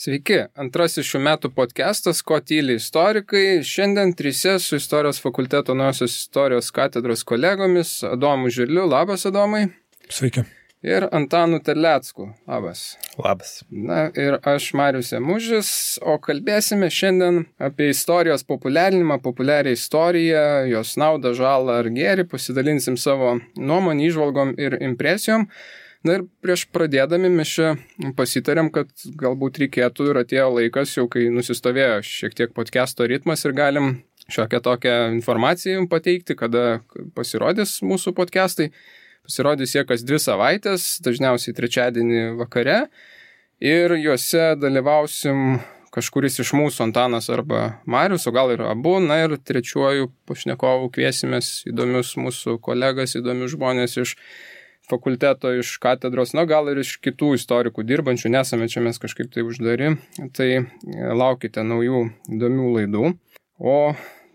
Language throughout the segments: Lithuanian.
Sveiki, antrasis šių metų podcastas Ko tyli istorikai. Šiandien trise su Istorijos fakulteto Naujosios istorijos katedros kolegomis Adomu Žirliu. Labas, Adomai. Sveiki. Ir Antanu Terlecku. Labas. Labas. Na ir aš Marius Emužis, o kalbėsime šiandien apie istorijos populiarinimą, populiarią istoriją, jos naudą, žalą ar gėrį, pasidalinsim savo nuomonį, įžvalgom ir impresijom. Na ir prieš pradėdami mes čia pasitarėm, kad galbūt reikėtų ir atėjo laikas, jau kai nusistovėjo šiek tiek podcast'o ritmas ir galim šiokią tokią informaciją pateikti, kada pasirodys mūsų podcast'ai. Pasirodys jie kas 2 savaitės, dažniausiai trečiadienį vakare ir juose dalyvausim kažkuris iš mūsų, Antanas arba Marius, o gal ir abu, na ir trečiuoju pašnekovu kviesimės įdomius mūsų kolegas, įdomius žmonės iš fakulteto, iš katedros, na gal ir iš kitų istorikų dirbančių, nesame čia mes kažkaip tai uždari, tai laukite naujų įdomių laidų. O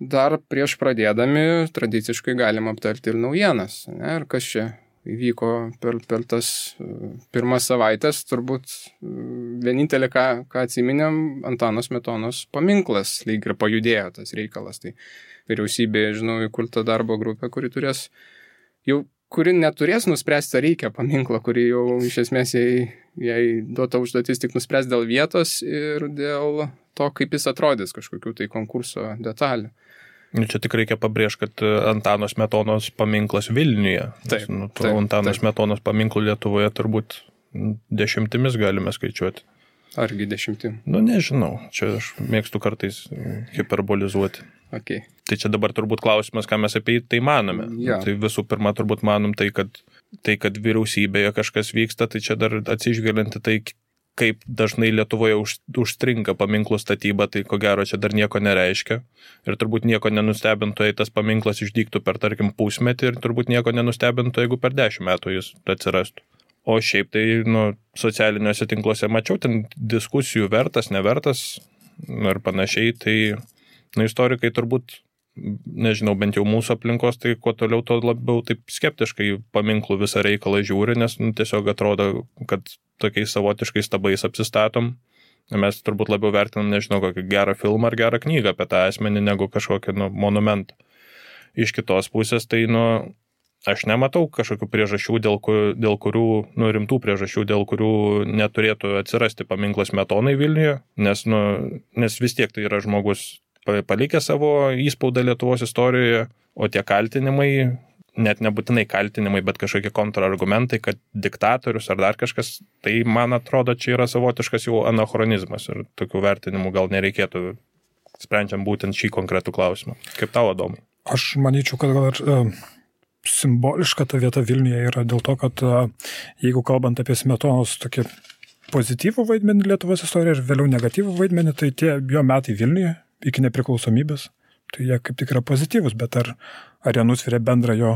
dar prieš pradėdami tradiciškai galim aptarti ir naujienas, ne? Ir kas čia įvyko per tas pirmas savaitės, turbūt vienintelė, ką atsiminėm, Antano Smetonos paminklas, lyg ir pajudėjo tas reikalas, tai vyriausybė, žinau, įkurta darbo grupė, kuri neturės nuspręsti, ar reikia paminklą, kuri jau iš esmės jai duota užduotis tik nuspręs dėl vietos ir dėl to, kaip jis atrodys kažkokių tai konkurso detalių. Čia tik reikia pabrėžti, kad Antano Smetonos paminklas Vilniuje. Taip, Antano Smetonos paminklų Lietuvoje turbūt 10 galime skaičiuoti. Argi 10? Nežinau, čia aš mėgstu kartais hiperbolizuoti. Okay. Tai čia dabar turbūt klausimas, ką mes apie tai manome. Ja. Tai visų pirma turbūt manom tai, kad vyriausybėje kažkas vyksta, tai čia dar atsižvelgiant tai, kaip dažnai Lietuvoje užstringa paminklų statyba, tai ko gero čia dar nieko nereiškia. Ir turbūt nieko nenustebintų, jei tas paminklas išdygtų per, tarkim, pusmetį ir turbūt nieko nenustebintų, jeigu per 10 metų jis atsirastų. O šiaip tai, socialiniuose tinkluose mačiau ten diskusijų vertas, nevertas ir panašiai, tai istorikai turbūt, nežinau, bent jau mūsų aplinkos, tai kuo toliau, to labiau taip skeptiškai paminklų visą reikalą žiūri, nes tiesiog atrodo, kad tokiais savotiškais stabais apsistatom. Mes turbūt labiau vertinam, nežinau, kokį gerą filmą ar gerą knygą apie tą asmenį, negu kažkokį monumentą. Iš kitos pusės, tai aš nematau kažkokių priežasčių, dėl kurių, rimtų priežasčių, dėl kurių neturėtų atsirasti paminklas Smetonai Vilniuje, nes vis tiek tai yra žmogus palikė savo įspaudą Lietuvos istorijoje, o tie kaltinimai, net nebūtinai kaltinimai, bet kažkokie kontrargumentai, kad diktatorius ar dar kažkas, tai man atrodo, čia yra savotiškas jau anachronizmas ir tokių vertinimų gal nereikėtų, sprendžiant būtent šį konkretų klausimą. Kaip tau, Adomai? Aš manyčiau, kad gal ir simboliška ta vieta Vilniuje yra dėl to, kad jeigu kalbant apie Smetonos tokį pozityvų vaidmenį Lietuvos istorijoje ir vėliau negatyvų vaidmenį, tai tie jo metai Vilniuje iki nepriklausomybės, tai jie kaip tik yra pozityvus, bet ar jie nusveria bendrą jo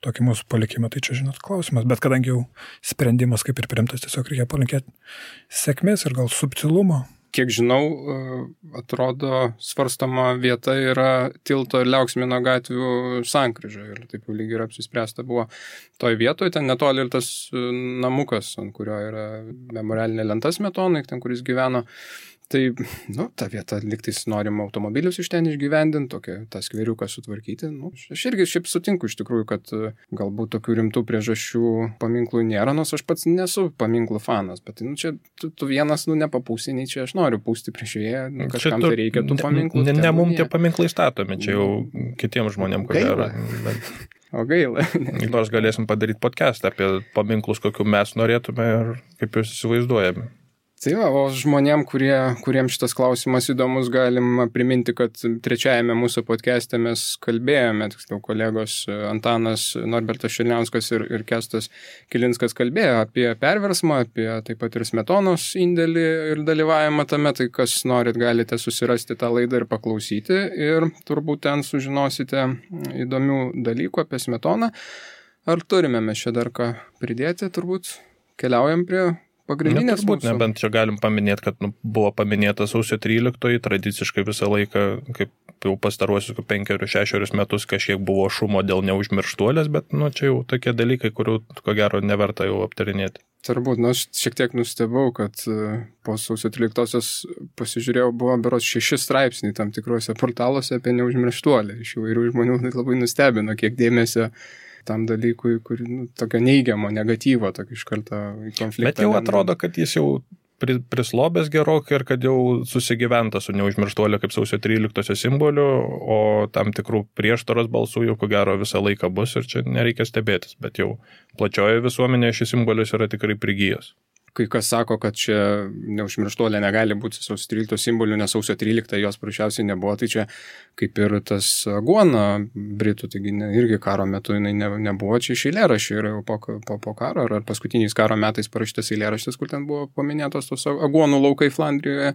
tokį mūsų palikimą, tai čia, žinot, klausimas. Bet kadangi jau sprendimas kaip ir priimtas, tiesiog reikia palinkėti sėkmės ir gal subtilumo. Kiek žinau, atrodo, svarstama vieta yra Tilto ir Liauksmino gatvių sankryža ir taip jau lyg ir apsispręsta buvo toj vietoje, ten netoli ir tas namukas, ant kurio yra memorialinė lenta Smetonai, ten kuris gyveno. Tai, ta vieta liktais norim automobilius iš ten išgyvendinti, tą skveriuką sutvarkyti. Aš irgi šiaip sutinku iš tikrųjų, kad galbūt tokių rimtų priežasčių paminklų nėra, nors aš pats nesu paminklų fanas, bet čia tu vienas nepapūsi, nei čia aš noriu pūsti prieš ją, kažkam tai reikia tų paminklų. Ne mums tie paminklai statomi, čia jau kitiems žmonėms, ko gero. O gaila. Nors galėsim padaryti podcastą apie paminklus, kokių mes norėtume ir kaip juos įsivaizduojame. Tai o žmonėm, kuriems šitas klausimas įdomus, galim priminti, kad trečiajame mūsų podcast'e mes kalbėjome, tiksliau kolegos Antanas Norbertas Šilniauskas ir Kęstas Kilinskas kalbėjo apie perversmą, apie taip pat ir Smetonos indėlį ir dalyvavimą tame, tai kas norit, galite susirasti tą laidą ir paklausyti ir turbūt ten sužinosite įdomių dalykų apie Smetoną. Ar turime mes čia dar ką pridėti, turbūt keliaujam prie pagrindinės mūsų. Nebent čia galim paminėti, kad buvo paminėta sausio 13, tradiciškai visą laiką, kaip jau pastaruosius 5-6 metus kažkiek buvo šumo dėl neužmirštuolės, bet čia jau tokie dalykai, kurių ko gero neverta jau aptarinėti. Turbūt, aš šiek tiek nustebau, kad po sausio 13-osios pasižiūrėjau, buvo berods 6 straipsniai tam tikruose portaluose apie neužmirštuolę. Iš įvairių žmonių labai nustebino, kiek dėmesio tam dalykui, kur tokio neigiamo, negatyvo, tokio iš karto į konfliktą. Bet jau atrodo, kad jis jau prislobęs gerokai ir kad jau susigyventa su neužmirštuolė kaip sausio 13-osios simboliu, o tam tikrų prieštaros balsų jau ko gero visą laiką bus ir čia nereikia stebėtis, bet jau plačioje visuomenėje šis simbolis yra tikrai prigijęs. Kai kas sako, kad čia neužmirštuolė negali būti sausio 13 simboliu, nes sausio 13 jos prašiausiai nebuvo, tai čia kaip ir tas aguona britų, taigi irgi karo metu jinai nebuvo, čia iš eilėraščių yra jau po karo, ar paskutiniais karo metais parašytas eilėraštis, kur ten buvo paminėtos tos aguonų laukai Flandrijoje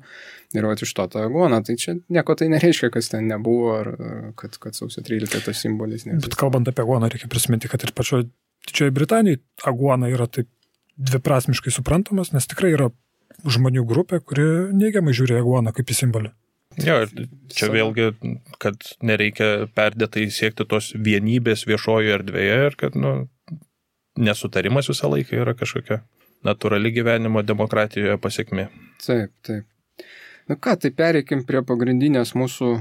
ir iš to ta aguona, tai čia nieko tai nereiškia, kas ten nebuvo, ar kad sausio 13 tas simbolis nebuvo. Bet kalbant apie aguoną, reikia prisiminti, kad ir pačioje Didžiojoje Britanijoje aguona yra taip dviprasmiškai suprantamas, nes tikrai yra žmonių grupė, kuri neigiamai žiūri aguoną kaip į simbolį. Jo, čia vėlgi, kad nereikia perdėtai siekti tos vienybės viešojoje erdvėje ir kad nesutarimas visą laiką yra kažkokia natūrali gyvenimo demokratijoje pasiekmė. Taip. Tai pereikim prie pagrindinės mūsų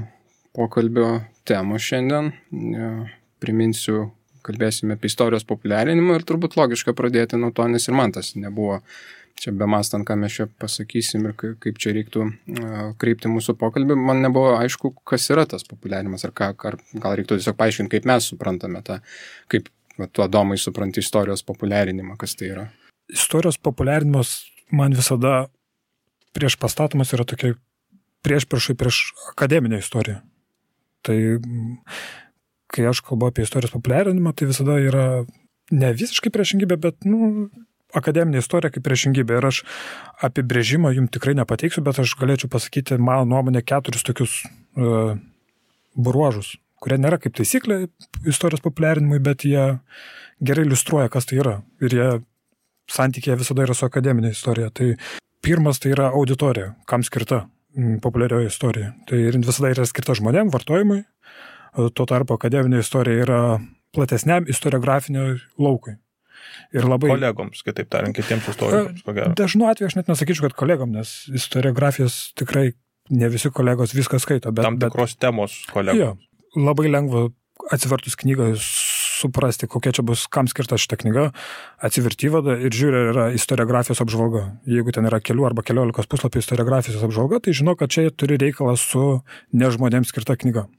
pokalbio temos šiandien. Priminsiu, kalbėsime apie istorijos populiarinimą ir turbūt logiška pradėti nuo to, nes ir man tas nebuvo čia bemastant, ką mes čia pasakysim ir kaip čia reiktų kreipti mūsų pokalbį. Man nebuvo aišku, kas yra tas populiarinimas, ar gal reiktų tiesiog paaiškinti, kaip mes suprantame tą, kaip tu, Adomai, supranti istorijos populiarinimą, kas tai yra. Istorijos populiarinimas man visada prieš pastatomas yra tokia priešpriešai prieš akademinę istoriją. Tai kai aš kalbu apie istorijos populiarinimą, tai visada yra ne visiškai priešingybė, bet akademinė istorija kaip priešingybė. Ir aš apibrėžimą jums tikrai nepateiksiu, bet aš galėčiau pasakyti, mano nuomonė, 4 tokius bruožus, kurie nėra kaip taisyklė istorijos populiarinimui, bet jie gerai iliustruoja, kas tai yra. Ir jie santykėje visada yra su akademinė istorija. Tai pirmas tai yra auditorija, kam skirta populiarioji istorija. Tai visada yra skirta žmonėm, vartojimui. Tuo tarpu akademinė istorija yra platesniam istoriografiniam laukui. Ir labai... Kolegoms, kitaip tariant, kitiems istorikams, ko gero. Dažnu atveju aš net nesakyčiau, kad kolegom, nes istoriografijos tikrai ne visi kolegos viską skaito. Tam tikros temos kolegos. Jo, labai lengva atsivertus knygą suprasti, kokia čia bus, kam skirta šita knyga, atsiverti įvadą ir žiūri, yra istoriografijos apžvalga. Jeigu ten yra kelių arba 15 puslapių istoriografijos apžvalga, tai žino, kad čia turi reikalą su nežmonėms skirta knyga.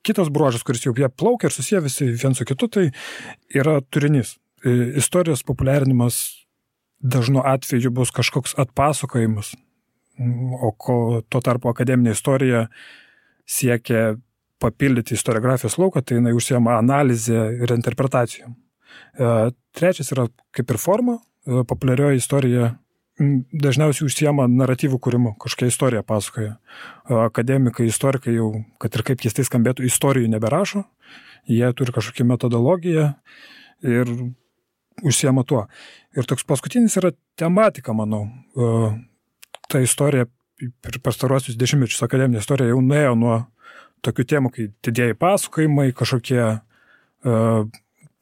Kitas bruožas, kuris jau jie plaukia ir susiję visi vien su kitu, tai yra turinys. Istorijos populiarinimas dažnu atveju bus kažkoks atpasakojimas, o tuo tarpu akademinė istorija siekia papildyti istoriografijos lauką, tai jinai užsiema analizę ir interpretacijom. Trečias yra kaip ir forma, populiarioji istorija dažniausiai užsiema naratyvų kūrimu, kažkokia istorija pasakoja. Akademikai, istorikai jau, kad ir kaip keistai skambėtų, istorijų neberašo, jie turi kažkokią metodologiją ir užsiema tuo. Ir toks paskutinis yra tematika, manau. Ta istorija per pastaruosius 10 mečius akademinė istorija jau nuėjo nuo tokių temų, kai didieji pasakojimai, kažkokie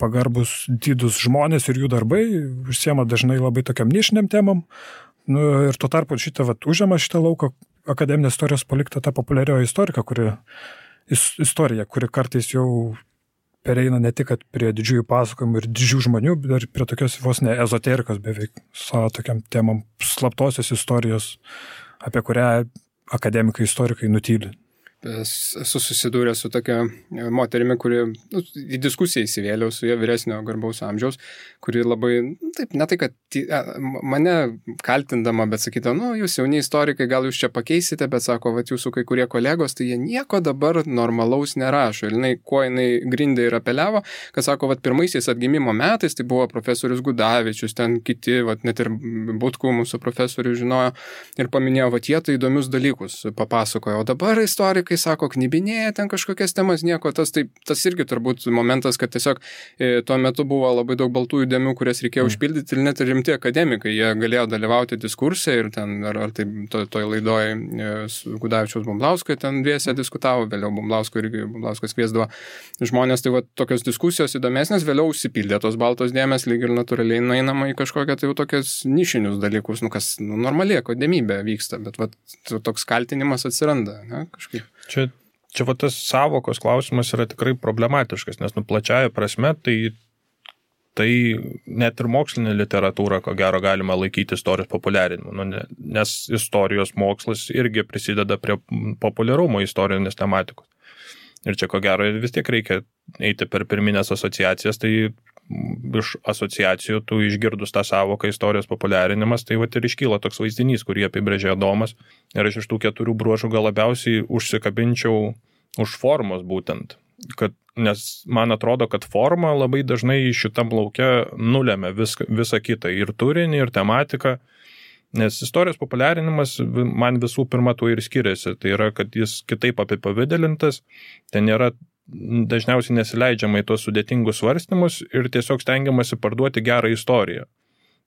pagarbus didus žmonės ir jų darbai, užsiema dažnai labai tokiam nišiniam temam. Ir tuo tarpu užima šitą lauką akademinės istorijos palikta ta populiarioji istorija, kuri kartais jau pereina ne tik prie didžiųjų pasakojimų ir didžių žmonių, bet ir prie tokios vos ne ezoterikos beveik, savo tokiam temam slaptosios istorijos, apie kurią akademikai, istorikai nutyli. Esu susidūręs su tokia moterimi, kuri į diskusiją įsivėliau su jie vyresnio garbaus amžiaus, kuri labai, taip, ne tai, kad mane kaltindama, bet sakydama, jūs jauni istorikai, gal jūs čia pakeisite, bet sako, jūsų kai kurie kolegos, tai jie nieko dabar normalaus nerašo. Ir jinai grindė ir apeliavo, kad sako, pirmaisiais atgimimo metais, tai buvo profesorius Gudavičius, ten kiti, net ir Butkų mūsų profesorių žinojo ir paminėjo, jie tai įdomius dalykus papasakojo, o dabar istorikai istorikai sako, knibinėja ten kažkokias temas, nieko, tas irgi turbūt momentas, kad tiesiog tuo metu buvo labai daug baltųjų dėmių, kurias reikėjo užpildyti ir net rimti akademikai, jie galėjo dalyvauti diskursai ir ten, ar tai toj laidoje su Gudavičiaus Bumblausko ten dviese diskutavo, vėliau Bumbliauskas kviesdavo žmonės, tai va tokios diskusijos įdomesnės, vėliau užsipildė tos baltos dėmės, lyg ir natūraliai nueinama į kažkokią tai jau tokias nišinius dalykus, kas normaliai akademybė vyksta, bet va toks kaltinimas atsiranda, ne, kažkaip. Čia va tas savokos klausimas yra tikrai problematiškas, nes plačiaja prasme tai net ir mokslinė literatūra, ko gero, galima laikyti istorijos populiarinimu, nes istorijos mokslas irgi prisideda prie populiarumo istorinės tematikos. Ir čia, ko gero, vis tiek reikia eiti per pirminės asociacijas, tai iš asociacijų, tu išgirdus tą savoką istorijos populiarinimas, tai ir iškyla toks vaizdinys, kurį apibrėžė Adomas. Ir aš iš tų 4 bruožų gal labiausiai užsikabinčiau už formos būtent. Nes man atrodo, kad forma labai dažnai šitam lauke nulėmė visą kitą, ir turinį, ir tematiką. Nes istorijos populiarinimas man visų pirma tuo ir skiriasi. Tai yra, kad jis kitaip apipavidalintas, ten yra dažniausiai nesileidžiama į tuos sudėtingus svarstymus ir tiesiog stengiamasi parduoti gerą istoriją.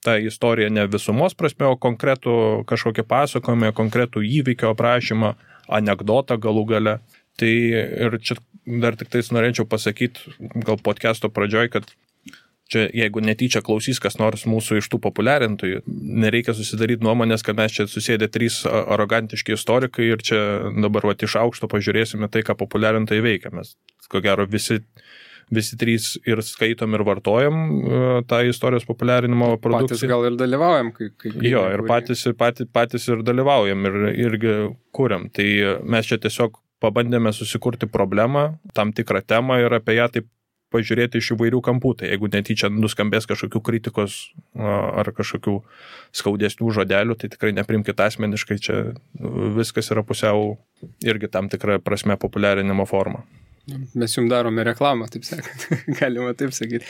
Ta istorija ne visumos prasme, o konkretų kažkokį pasakojimą, konkretų įvykio aprašymą, anekdotą galų gale. Tai ir čia dar tik tais norėčiau pasakyti, gal podcast'o pradžioj, kad čia, jeigu netyčia klausys kas nors mūsų iš tų populiarintojų, nereikia susidaryti nuomonės, kad mes čia susėdė 3 arogantiški istorikai ir čia dabar iš aukšto pažiūrėsime tai, ką populiarintojai veikia. Mes, ko gero, visi 3 ir skaitom ir vartojam tą istorijos populiarinimo produkciją. Patys gal ir dalyvaujam. Jo, ir patys ir dalyvaujam ir irgi kuriam. Tai mes čia tiesiog pabandėme susikurti problemą, tam tikrą temą ir apie ją taip pažiūrėti iš įvairių kampų. Tai jeigu netyčia nuskambės kažkokių kritikos ar kažkokių skaudesnių žodelių, tai tikrai neprimkite asmeniškai, čia viskas yra pusiau irgi tam tikra prasme populiarinimo forma. Mes jums darome reklamą, taip sakant, galima taip sakyti.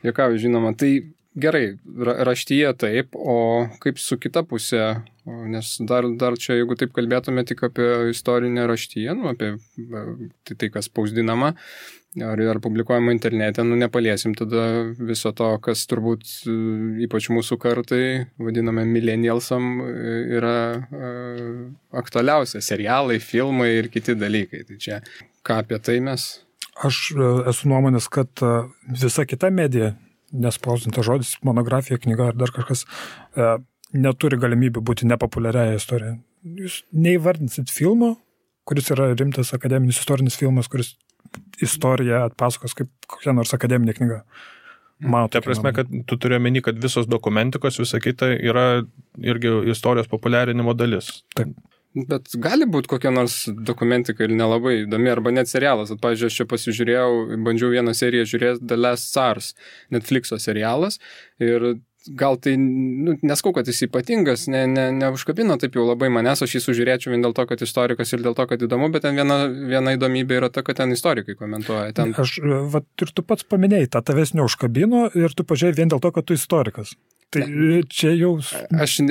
Jokau, žinoma, tai gerai, raštyje taip, o kaip su kita pusė, nes dar čia, jeigu taip kalbėtume tik apie istorinę raštyje, apie tai, kas spausdinama, ar publikuojama internete, nepaliesim tada viso to, kas turbūt ypač mūsų kartai, vadiname millennialsam, yra aktualiausia, serialai, filmai ir kiti dalykai. Tai čia, ką apie tai mes? Aš esu nuomonės, kad visa kita medija, nespausdintas žodis, monografija, knyga ar dar kažkas, neturi galimybių būti nepopuliariaja istorija. Jūs neįvardinsit filmo, kuris yra rimtas akademinis istorinis filmas, kuris istoriją atpasakos kaip kokia nors akademinė knyga. Ta prasme, kad tu turi omeny, kad visos dokumentikos, visa kita yra irgi istorijos populiarinimo dalis. Taip. Bet gali būti kokia nors dokumentika ir nelabai įdomi, arba net serialas. Pavyzdžiui, aš čia pasižiūrėjau, bandžiau vieną seriją žiūrėti, The Last Tsars, Netflixo serialas, ir gal tai, neskau, kad jis ypatingas, neužkabino taip jau labai manęs, aš jį sužiūrėčiau vien dėl to, kad istorikas ir dėl to, kad įdomu, bet ten viena įdomybė yra ta, kad ten istorikai komentuoja. Ir tu pats paminėjai, tavęs neužkabino ir tu pažiūrėjai vien dėl to, kad tu istorikas. Tai čia jau... Aš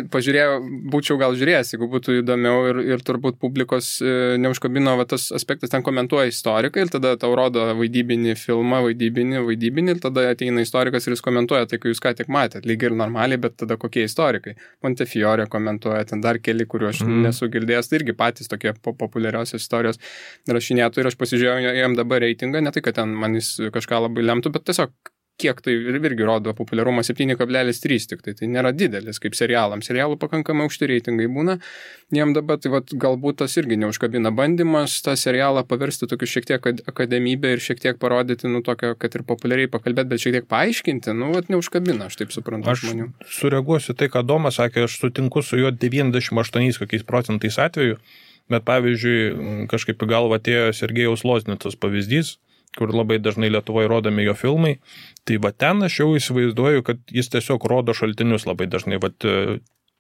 būčiau gal žiūrėjęs, jeigu būtų įdomiau ir turbūt publikos neužkabino tas aspektas, ten komentuoja istorikai ir tada tau rodo vaidybinį filmą, vaidybinį ir tada ateina istorikas ir jis komentuoja tai, kai jūs ką tik matėt, lyg ir normaliai, bet tada kokie istorikai. Montefiore komentuoja, ten dar keli, kuriuo aš nesu girdėjęs, tai irgi patys tokie populiariausios istorijos rašinėtų ir aš pasižiūrėjau jam dabar reitingą, ne tai, kad ten man jis kažką labai lemtų, bet tiesiog kiek tai irgi rodo populiarumą 7,3 tik tai nėra didelis kaip serialams. Serialų pakankamai aukšti reitingai būna. Jiem dabar tai galbūt tas irgi neužkabina bandymas tą serialą paversti tokiu šiek tiek akademybę ir šiek tiek parodyti, tokio, kad ir populiariai pakalbėti, bet šiek tiek paaiškinti, neužkabina, aš taip suprantu žmonių. Aš sureaguosiu tai, ką Domas sakė, aš sutinku su juo 98% atvejų, bet pavyzdžiui, kažkaip į galvą atėjo Sergejaus Loznicos pavyzdys, kur labai dažnai Lietuvoje rodomi jo filmai, tai ten aš jau įsivaizduoju, kad jis tiesiog rodo šaltinius labai dažnai.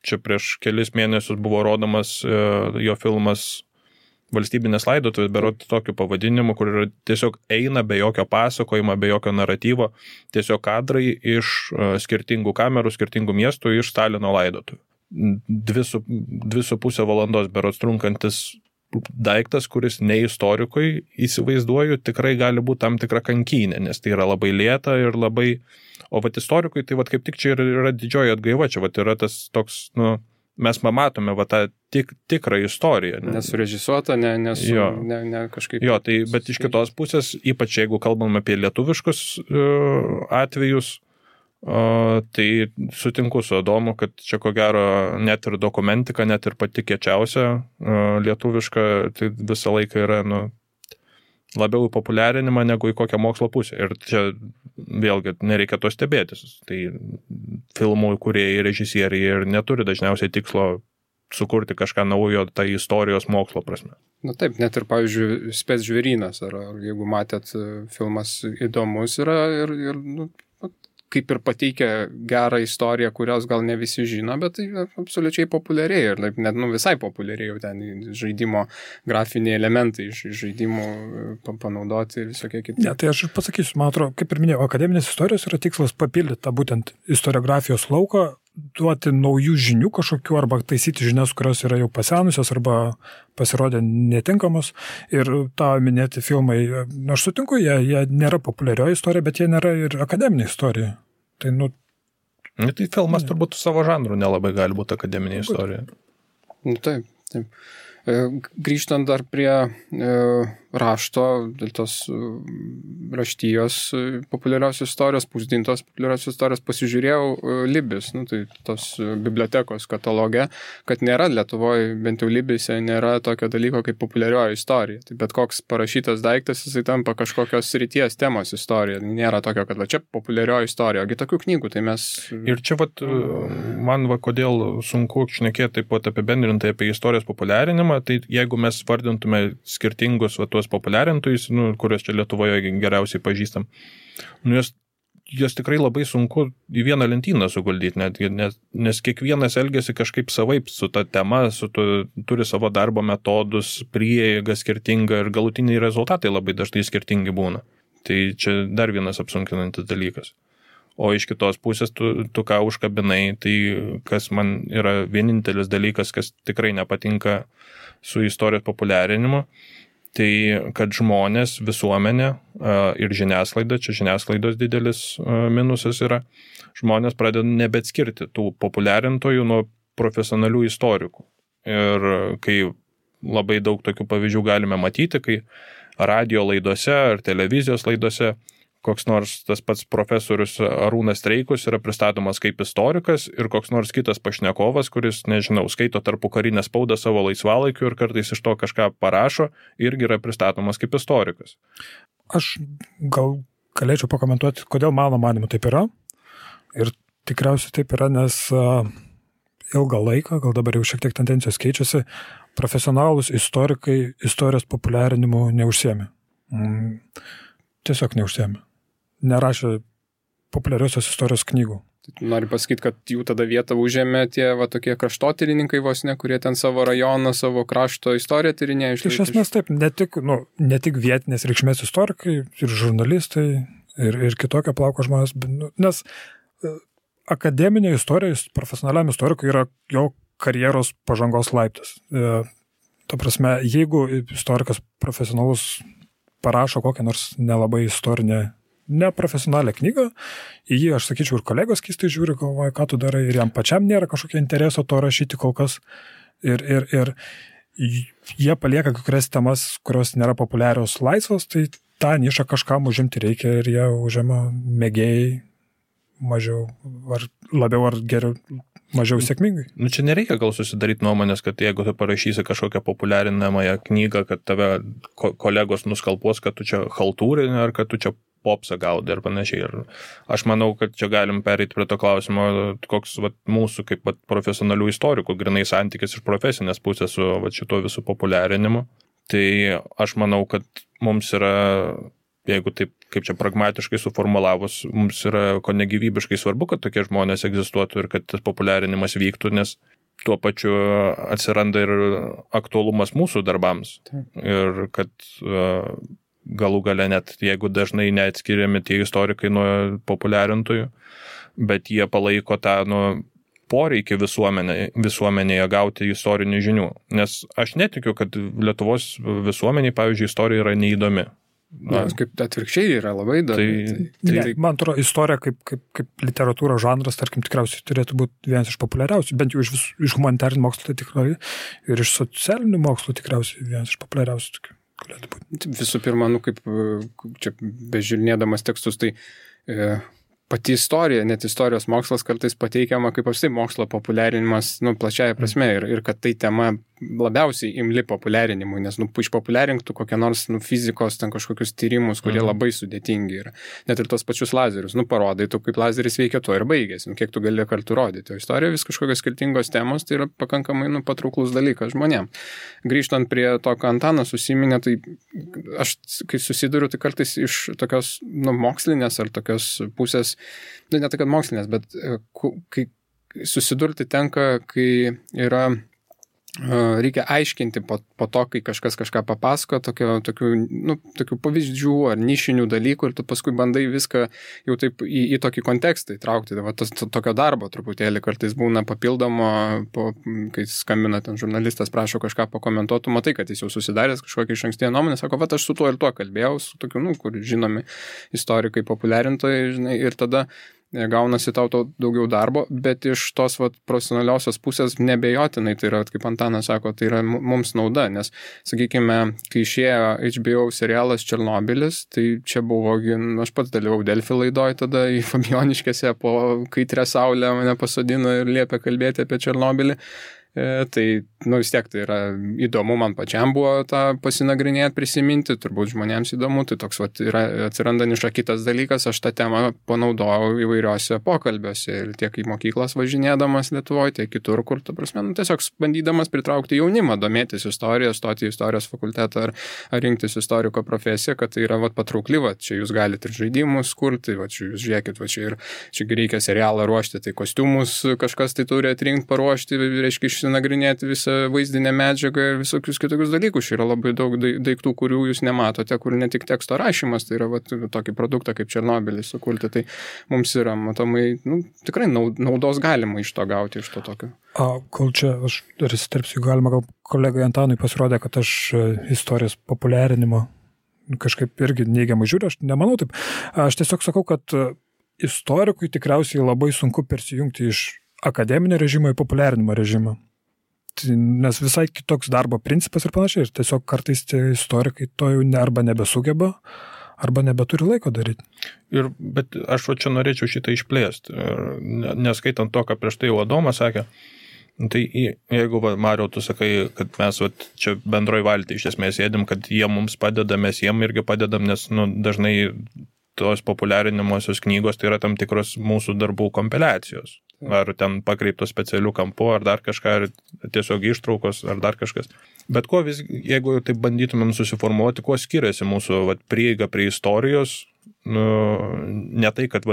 Čia prieš kelis mėnesius buvo rodomas jo filmas Valstybinės laidotuvės, berods tokiu pavadinimu, kur tiesiog eina be jokio pasakojimo, be jokio naratyvo, tiesiog kadrai iš skirtingų kamerų, skirtingų miestų iš Stalino laidotuvių. 2,5 valandos berods trunkantis daiktas, kuris ne istorikui, įsivaizduoju, tikrai gali būti tam tikra kankynė, nes tai yra labai lėta ir labai, o vat istorikui, tai vat kaip tik čia yra didžioji atgaiva, čia vat yra tas toks, nu, mes pamatome va tą tikrą istoriją. Nesurežisuota, ne kažkaip. Jo, tai, bet iš kitos pusės, ypač jeigu kalbam apie lietuviškus atvejus, tai sutinku su Adomu, kad čia ko gero net ir dokumentika, net ir pati kiečiausia lietuviška, tai visą laiką yra labiau į populiarinimą negu į kokią mokslo pusę. Ir čia vėlgi nereikia to stebėtis. Tai filmų kūrėjai, režisieriai ir neturi dažniausiai tikslo sukurti kažką naujo tai istorijos mokslo prasme. Na taip, net ir, pavyzdžiui, Spec žvėrynas, ar jeigu matėt, filmas įdomus yra ir kaip ir pateikia gerą istoriją, kurios gal ne visi žino, bet tai absoliučiai populiariai ir net visai populiariai jau ten žaidimo grafiniai elementai iš žaidimų panaudoti ir visokie kiti. Ne, tai aš pasakysiu, man atrodo, kaip ir minėjau, akademinės istorijos yra tikslas papildyti tą būtent istoriografijos lauką, duoti naujų žinių kažkokių arba taisyti žinias, kurios yra jau pasenusios arba pasirodė netinkamos. Ir tą minėti filmai, aš sutinku, jie nėra populiarioji istorija, bet jie nėra ir akademinė istorija. Tai, tai filmas turbūt savo žanrų nelabai gali būti akademinė istorija. Taip. Grįžtant dar prie rašto, dėl tos raštijos populiariausios istorijos, pusdintos populiariausios istorijos, pasižiūrėjau Libis, tai tos bibliotekos katalogė, kad nėra Lietuvoje, bent jau Libise, nėra tokio dalyko kaip populiarioji istorija. Tai bet koks parašytas daiktas, jisai tampa kažkokios srities temos istorija. Nėra tokio, kad čia populiarioji istorija, ogi tokių knygų, tai mes... Ir čia man kodėl sunku šnekėti taip pat apibendrintai apie istorijos populiarinimą, tai jeigu mes vardintume skirtingus tuos populiarintojus, kuriuos čia Lietuvoje geriausiai pažįstam, jos tikrai labai sunku į vieną lentyną suguldyti, nes kiekvienas elgiasi kažkaip savaip su ta tema, turi savo darbo metodus, prieigą skirtingą ir galutiniai rezultatai labai dažnai skirtingi būna. Tai čia dar vienas apsunkinantis dalykas. O iš kitos pusės tu ką užkabinai, tai kas man yra vienintelis dalykas, kas tikrai nepatinka su istorijos populiarinimu, tai kad žmonės, visuomenė ir žiniasklaida, čia žiniasklaidos didelis minusas yra, žmonės pradeda nebeatskirti tų populiarintojų nuo profesionalių istorikų. Ir kai labai daug tokių pavyzdžių galime matyti, kai radio laidose ar televizijos laidose koks nors tas pats profesorius Arūnas Streikus yra pristatomas kaip istorikas ir koks nors kitas pašnekovas, kuris, nežinau, skaito tarpukarinę spaudą savo laisvalaikiu ir kartais iš to kažką parašo, irgi yra pristatomas kaip istorikas. Aš gal galėčiau pakomentuoti, kodėl mano manimu taip yra. Ir tikriausiai taip yra, nes ilgą laiką, gal dabar jau šiek tiek tendencijos keičiasi, profesionalūs istorikai istorijos populiarinimu neužsiėmė. Tiesiog neužsiėmė. Nerašė populiariosios istorijos knygų. Noriu pasakyti, kad jų tada vietą užėmė tie tokie kraštotyrininkai vos ne, kurie ten savo rajoną, savo krašto istoriją tyrinėjo. Iš esmės taip, ne tik vietinės reikšmės istorikai, ir žurnalistai, ir kitokio plauko žmonės, nes akademinė istorija, profesionaliam istorikui yra jo karjeros pažangos laiptas. Ta prasme, jeigu istorikas profesionalus parašo kokią nors nelabai istorinę, neprofesionalią knygą, į jį, aš sakyčiau, ir kolegos keistai žiūri, galvoja, ką tu darai, ir jam pačiam nėra kažkokio intereso to rašyti kol kas. Ir jie palieka kai kurias temas, kurios nėra populiarios laisvos, tai tą nišą kažkam užimti reikia ir jie užima mėgėjai mažiau, ar labiau, ar geriau, mažiau sėkmingai. Čia nereikia gal susidaryti nuomonės, kad jeigu tu parašysi kažkokią populiarinamąją knygą, kad tave kolegos nuskalpuos, kad tu čia chaltūrinė, ar kad tu čia popsą gaudai ir panašiai. Ir aš manau, kad čia galim pereiti prie to klausimo, koks mūsų kaip profesionalių istorikų grinai santykis iš profesinės pusės su šito visų populiarinimu. Tai aš manau, kad mums yra, jeigu taip, kaip čia pragmatiškai suformulavus, mums yra ko negyvybiškai svarbu, kad tokie žmonės egzistuotų ir kad tas populiarinimas vyktų, nes tuo pačiu atsiranda ir aktualumas mūsų darbams. Ir kad galų gale net, jeigu dažnai neatskiriami tie istorikai nuo populiarintojų, bet jie palaiko tą poreikį visuomenėje gauti istorinių žinių. Nes aš netikiu, kad Lietuvos visuomeniai, pavyzdžiui, istorija yra neįdomi. Nes kaip atvirkščiai yra labai įdomi. Man atrodo, istorija kaip literatūros žanras, tarkim, tikriausiai turėtų būti vienas iš populiariausių, bent jau iš humanitarinių mokslų tai tikrai, ir iš socialinių mokslų tikriausiai vienas iš populiariausių tokių galėtų būti. Visų pirma, kaip čia bežiūrinėdamas tekstus, tai pati istorija, net istorijos mokslas kartais pateikiama kaip apstai mokslo populiarinimas, plačiaja prasme, ir kad tai tema labiausiai imli populiarinimui, nes, išpopuliarinktų kokią nors, fizikos, ten kažkokius tyrimus, kurie labai sudėtingi yra. Net ir tos pačius lazerius, parodai, tu kaip lazeris veikia, to ir baigėsi, kiek tu gali kartu rodyti. O istorija vis kažkokios skirtingos temos, tai yra pakankamai, patrauklus dalykas žmonėms. Grįžtant prie to, ką Antanas užsiminė, tai aš, kai susiduriu, tai kartais iš tokios, mokslinės ar tokios pusės, ne tai, kad mokslinės, bet kai susidurti tenka, kai yra reikia aiškinti po to, kai kažkas kažką papasako, tokių pavyzdžių ar nišinių dalykų ir tu paskui bandai viską jau taip į tokį kontekstą įtraukti. Tokio darbo truputėlį kartais būna papildomo, kai skambina ten žurnalistas, prašo kažką pakomentuotų, matai, kad jis jau susidaręs kažkokią išankstinę nuomonę, sako, aš su tuo ir tuo kalbėjau, su tokiu, kur žinomi istorikai, populiarintojai, žinai, ir tada gaunasi tau daugiau darbo, bet iš tos profesionaliosios pusės nebejotinai, tai yra, kaip Antanas sako, tai yra mums nauda, nes, sakykime, kai išėjo HBO serialas Černobylis, tai čia buvo, aš pats dalyvau Delfi laidoj tada į Fabioniškėse, po kaitrę saulę mane pasodino ir liepė kalbėti apie Černobylį. Tai, vis tiek tai yra įdomu, man pačiam buvo tą pasinagrinėti, prisiminti, turbūt žmonėms įdomu, tai toks yra atsiranda niša. Kitas dalykas, aš tą temą panaudojau įvairiuose pokalbiuose ir tiek į mokyklas važinėdamas Lietuvoje, tiek kitur, kur, ta prasme, tiesiog bandydamas pritraukti jaunimą, domėtis istoriją, stoti į istorijos fakultetą ar rinktis istoriko profesiją, kad tai yra patraukli, čia jūs galite ir žaidimus kurti, čia jūs žiūrėkit, čia reikia serialą ruošti, tai kostiumus kažkas tai turi atrinkti, paruošti, reiškia, nagrinėti visą vaizdinę medžiagą ir visokius kitokius dalykus. Yra labai daug daiktų, kurių jūs nematote, kur ne tik teksto rašymas, tai yra tokį produktą kaip Černobylis sukurti. Tai mums yra, matomai, tikrai naudos galima iš to gauti, iš to tokio. Kol čia aš dar įsiterpsiu, galima gal kolegai Antanui pasirodė, kad aš istorijos populiarinimo kažkaip irgi neigiamai žiūriu, aš nemanau taip. Aš tiesiog sakau, kad istorikui tikriausiai labai sunku persijungti iš akademinio režimo į populiarinimo režimą. Nes visai kitoks darbo principas ir panašiai. Ir tiesiog kartais tie istorikai to jau arba nebesugeba, arba nebeturi laiko daryti. Bet aš čia norėčiau šitą išplėsti. Neskaitant to, ką prieš tai Adomas sakė, tai jeigu, Mariau, tu sakai, kad mes čia bendroj valty iš esmės sėdim, kad jie mums padeda, mes jiem irgi padedam, nes dažnai tos populiarinimosios knygos tai yra tam tikros mūsų darbų kompiliacijos. Ar ten pakreiptos specialių kampų, ar dar kažką, ar tiesiog ištraukos, ar dar kažkas. Bet jeigu taip bandytumėm susiformuoti, kuo skiriasi mūsų prieiga prie istorijos, ne tai, kad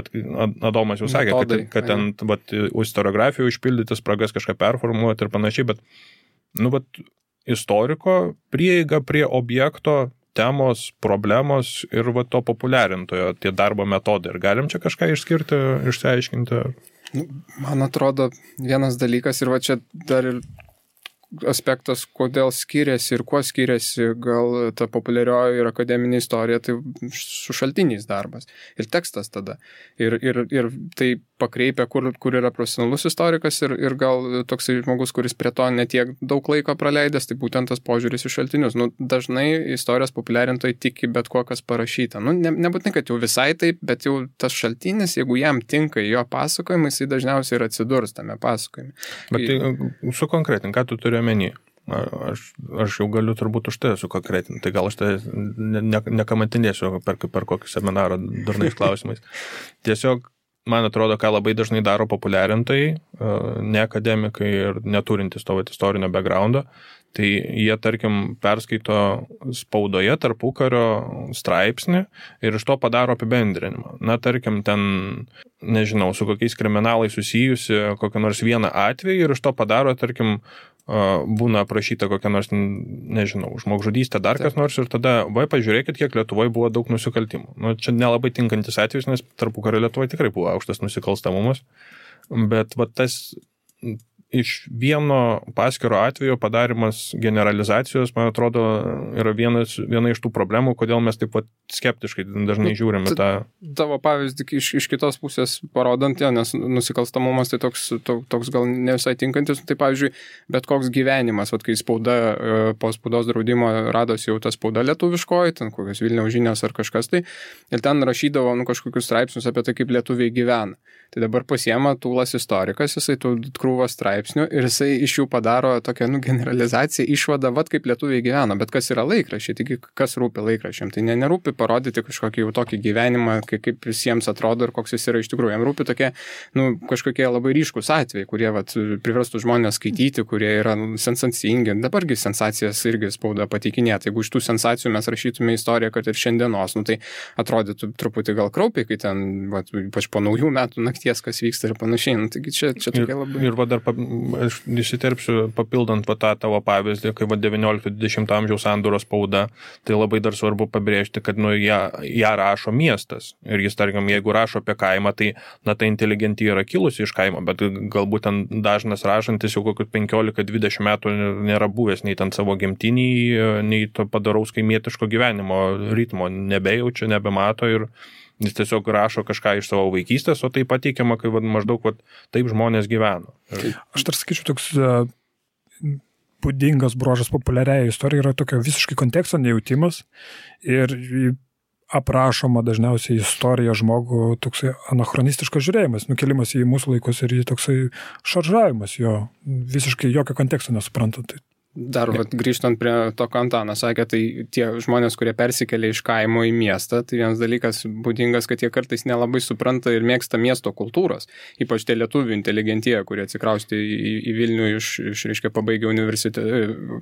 Adomas jau sakė, kad ten istoriografijų užpildyti spragas kažką performuoti ir panašiai, bet istoriko prieiga prie objekto, temos, problemos ir to populiarintojo, tie darbo metodai. Ir galim čia kažką išskirti, išsiaiškinti? Man atrodo, vienas dalykas ir čia dar ir aspektas, kodėl skiriasi ir kuo skiriasi gal ta populiarioji ir akademinė istorija, tai su šaltiniais darbas. Ir tekstas tada. Ir tai pakreipia, kur yra profesionalus istorikas ir gal toksai žmogus, kuris prie to netiek daug laiko praleidęs, tai būtent tas požiūris į šaltinius. Dažnai istorijos populiarintojai tiki bet ko, kas parašyta. Nebūtinai, kad jau visai taip, bet jau tas šaltinis, jeigu jam tinka jo pasakojimai, jisai dažniausiai ir atsidurs tame pasakojime. Bet tai sukonkretink, ką tu turi omeny? Aš jau galiu turbūt už tai sukonkretinti, tai gal aš tai nekamatinėsiu per kokį seminarą durnais klausimais. Tiesiog man atrodo, ką labai dažnai daro populiarintojai, ne akademikai ir neturintys to istorinio backgroundo, tai jie, tarkim, perskaito spaudoje tarpukario straipsnį ir iš to padaro apibendrinimą. Tarkim, ten, nežinau, su kokiais kriminalais susijusi kokią nors vieną atvejį ir iš to padaro, tarkim, būna aprašyta kokia nors, nežinau, žmogžudystė, dar kas nors ir tada, pažiūrėkit, kiek Lietuvoje buvo daug nusikaltimų. Čia nelabai tinkantis atvejis, nes tarpukario Lietuvoje tikrai buvo aukštas nusikalstamumas, bet tas iš vieno paskiro atvejo padarimas generalizacijos, man atrodo, yra viena iš tų problemų, kodėl mes taip pat skeptiškai dažnai žiūrime tą. Tavo pavyzdį iš kitos pusės parodant, nes nusikalstamumas tai toks gal ne visai tinkantis, tai pavyzdžiui, bet koks gyvenimas, kai spauda po spaudos draudimo radosi jau ta spauda lietuviškoji, ten kokios Vilniaus žinios ar kažkas tai, ir ten rašydavo kažkokius straipsnius apie tai, kaip lietuviai gyvena. Tai dabar pasiema Tūlas istorikas, jisai tų krūvą straipsnių ir jisai iš jų padaro tokią generalizaciją, išvadą, kaip lietuviai gyvena, bet kas yra laikraščiai, taigi kas rūpi laikraščiam, tai nerūpi parodyti kažkokį jau tokį gyvenimą, kaip visiems atrodo ir koks jis yra iš tikrųjų, jam rūpi tokie, kažkokie labai ryškus atvejai, kurie priverstų žmonės skaityti, kurie yra sensacingi, dabargi sensacijas irgi spauda pateikinėti, jeigu iš tų sensacijų mes rašytume istoriją, kad ir šiandienos, tai atrodytų truputį gal kraupiai, kai ten, ypač po naujų metų nakties, kas vyksta ir panašiai. Taigi čia tokia labai... Ir dar aš įsiterpsiu, papildant tą tavo pavyzdį, kai 19-20 amžiaus sandūros spauda, tai labai dar svarbu pabrėžti, kad ją rašo miestas. Ir jis, tarkim, jeigu rašo apie kaimą, tai ta inteligentija yra kilusi iš kaimo, bet galbūt ten dažnas rašantis jau kokius 15-20 metų nėra buvęs nei ten savo gimtinį, nei to padaraus kaimietiško gyvenimo ritmo nebejaučia, nebemato ir jis tiesiog rašo kažką iš savo vaikystės, o tai pateikiama, kai maždaug taip žmonės gyveno. Aš dar sakyčiau, toks būdingas bruožas populiariai istorijai yra tokio visiškai konteksto nejautimas ir aprašoma dažniausiai istorija žmogų toksai anachronistiškas žiūrėjimas, nukelimas į mūsų laikus ir į toksai šaržavimas jo, visiškai jokio konteksto nesuprantant. Dar grįžtant prie to, ką Antanas sakė, tai tie žmonės, kurie persikelia iš kaimo į miestą, tai vienas dalykas būdingas, kad jie kartais nelabai supranta ir mėgsta miesto kultūros. Ypač tie lietuvių inteligentija, kurie atsikraustė į Vilnių reiškia, pabaigę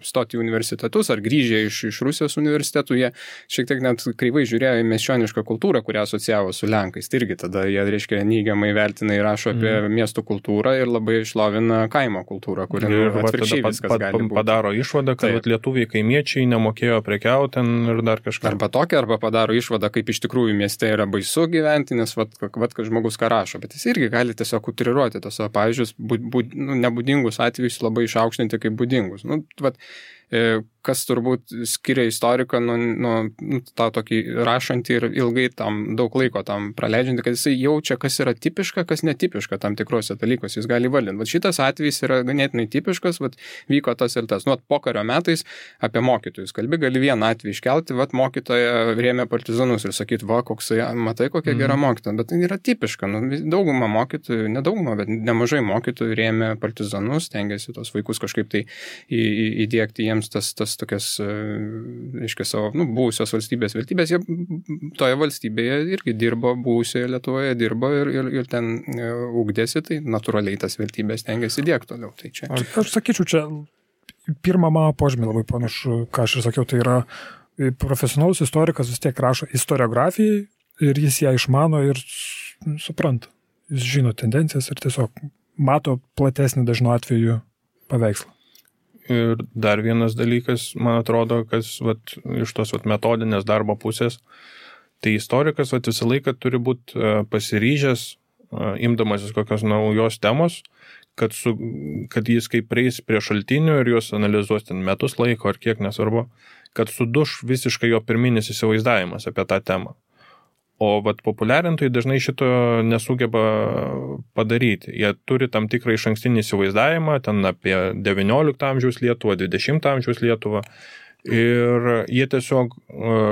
stoti į universitetus ar grįžę iš Rusijos universitetų, jie šiek tiek net kreivai žiūrėjo į miesčionišką kultūrą, kurią asocijavo su Lenkais. Tai irgi tada jie, reiškia, neigiamai vertina ir rašo apie miesto kultūrą ir labai išlovina kaimo kultūrą, kuri atvirkščiai viskas gali būti. Išvada, kad lietuviai kaimiečiai nemokėjo prekiauti ir dar kažką. Arba padaro išvadą, kaip iš tikrųjų mieste yra baisu gyventi, nes kad žmogus ką rašo, bet jis irgi gali tiesiog utriruoti tos savo pavyzdžius, nebūdingus atvejus labai išaukštinti kaip būdingus. Kas turbūt skiria istoriką nuo tą tokį rašantį ir ilgai tam daug laiko tam praleidžiantį, kad jisai jaučia, kas yra tipiška, kas netipiška tam tikrose dalykuose, jis gali valdinti. Šitas atvejis yra ganėtinai tipiškas, vyko tas ir tas. Pokario metais apie mokytojus kalbi, gali vieną atvejį iškelti, mokytoja rėmė partizanus ir sakyti, koksai, matai, kokia gera mokytoja, bet tai yra tipiška. Dauguma mokytojų, nedauguma, bet nemažai mokytojų rėmė partizanus, stengiasi tos vaikus kažkaip tai įdiegti jiems tas tokias, reiškia, savo buvusios valstybės vertybės. Jie toje valstybėje irgi dirbo, buvusioje Lietuvoje dirbo ir ten ugdėsi, tai natūraliai tas vertybės stengiasi įdiegti toliau. Tai čia. Aš sakyčiau, čia pirmą mano požymį labai panašu, ką aš ir sakiau, tai yra profesionalus istorikas vis tiek rašo istoriografijai ir jis ją išmano ir supranta. Jis žino tendencijas ir tiesiog mato platesnį dažnu atveju paveikslą. Ir dar vienas dalykas, man atrodo, kas iš tos metodinės darbo pusės, tai istorikas visą laiką turi būti pasiryžęs, imdamasis kokios naujos temos, kad jis kaip prieis prie šaltinių ir juos analizuos ten metus laiko ar kiek nesvarbu, kad suduš visiškai jo pirminis įsivaizdavimas apie tą temą. O populiarintojai dažnai šito nesugeba padaryti. Jie turi tam tikrą išankstinį įsivaizdavimą, ten apie 19 amžiaus Lietuvą, 20 amžiaus Lietuvą. Ir jie tiesiog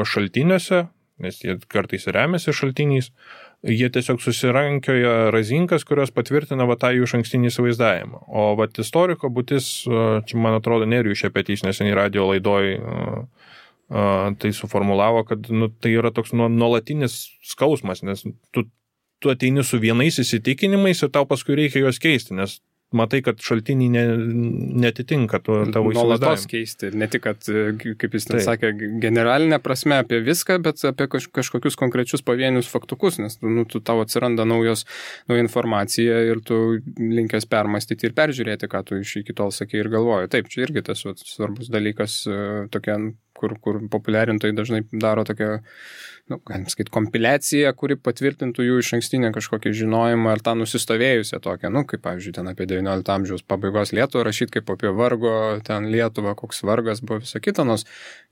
šaltiniuose, nes jie kartais remiasi šaltiniais, jie tiesiog susirankioja razinkas, kurios patvirtina tą jų išankstinį įsivaizdavimą. O istoriko būtis, čia man atrodo, Nerijus Šepetys neseniai radijo laidoj tai suformulavo, kad tai yra toks nuolatinis skausmas, nes tu ateini su vienais įsitikinimais ir tau paskui reikia juos keisti, nes matai, kad šaltiniai netitinka tavo įsivaizdavimą. Nuolatos keisti, ne tik, kad, kaip jis ten sakė, generalinė prasme apie viską, bet apie kažkokius konkrečius pavienius faktukus, nes tau atsiranda nauja informacija ir tu linkęs permastyti ir peržiūrėti, ką tu iki tol sakei ir galvoji. Taip, čia irgi tas svarbus dalykas, tokia kur populiarintojai dažnai daro tokią, galim sakyti, kompiliaciją, kuri patvirtintų jų išankstinę kažkokį žinojimą ar tą nusistovėjusią tokią, kaip pavyzdžiui, ten apie 19 amžiaus pabaigos Lietuvą rašyti kaip apie vargo, ten Lietuvą, koks vargas buvo visa kita, nors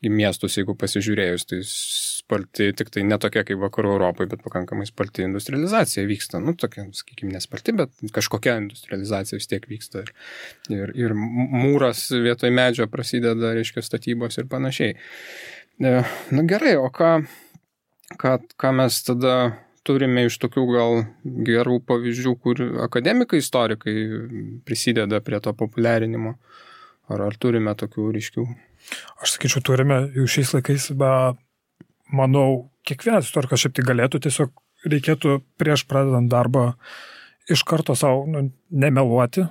į miestus, jeigu pasižiūrėjus, tai sparti, tik tai ne tokia kaip vakarų Europoje, bet pakankamai sparti industrializacija vyksta, tokia, sakykime, nesparti, bet kažkokia industrializacija vis tiek vyksta ir mūras vietoj medžio prasideda, reiškia, statybos ir panašiai. Gerai, o ką mes tada turime iš tokių gal gerų pavyzdžių, kur akademikai, istorikai prisideda prie to populiarinimo? Ar turime tokių ryškių? Aš sakyčiau, turime jau šiais laikais, manau, kiekvienas istorikas šiaip tai galėtų, tiesiog reikėtų prieš pradedant darbą iš karto savo nemeluoti,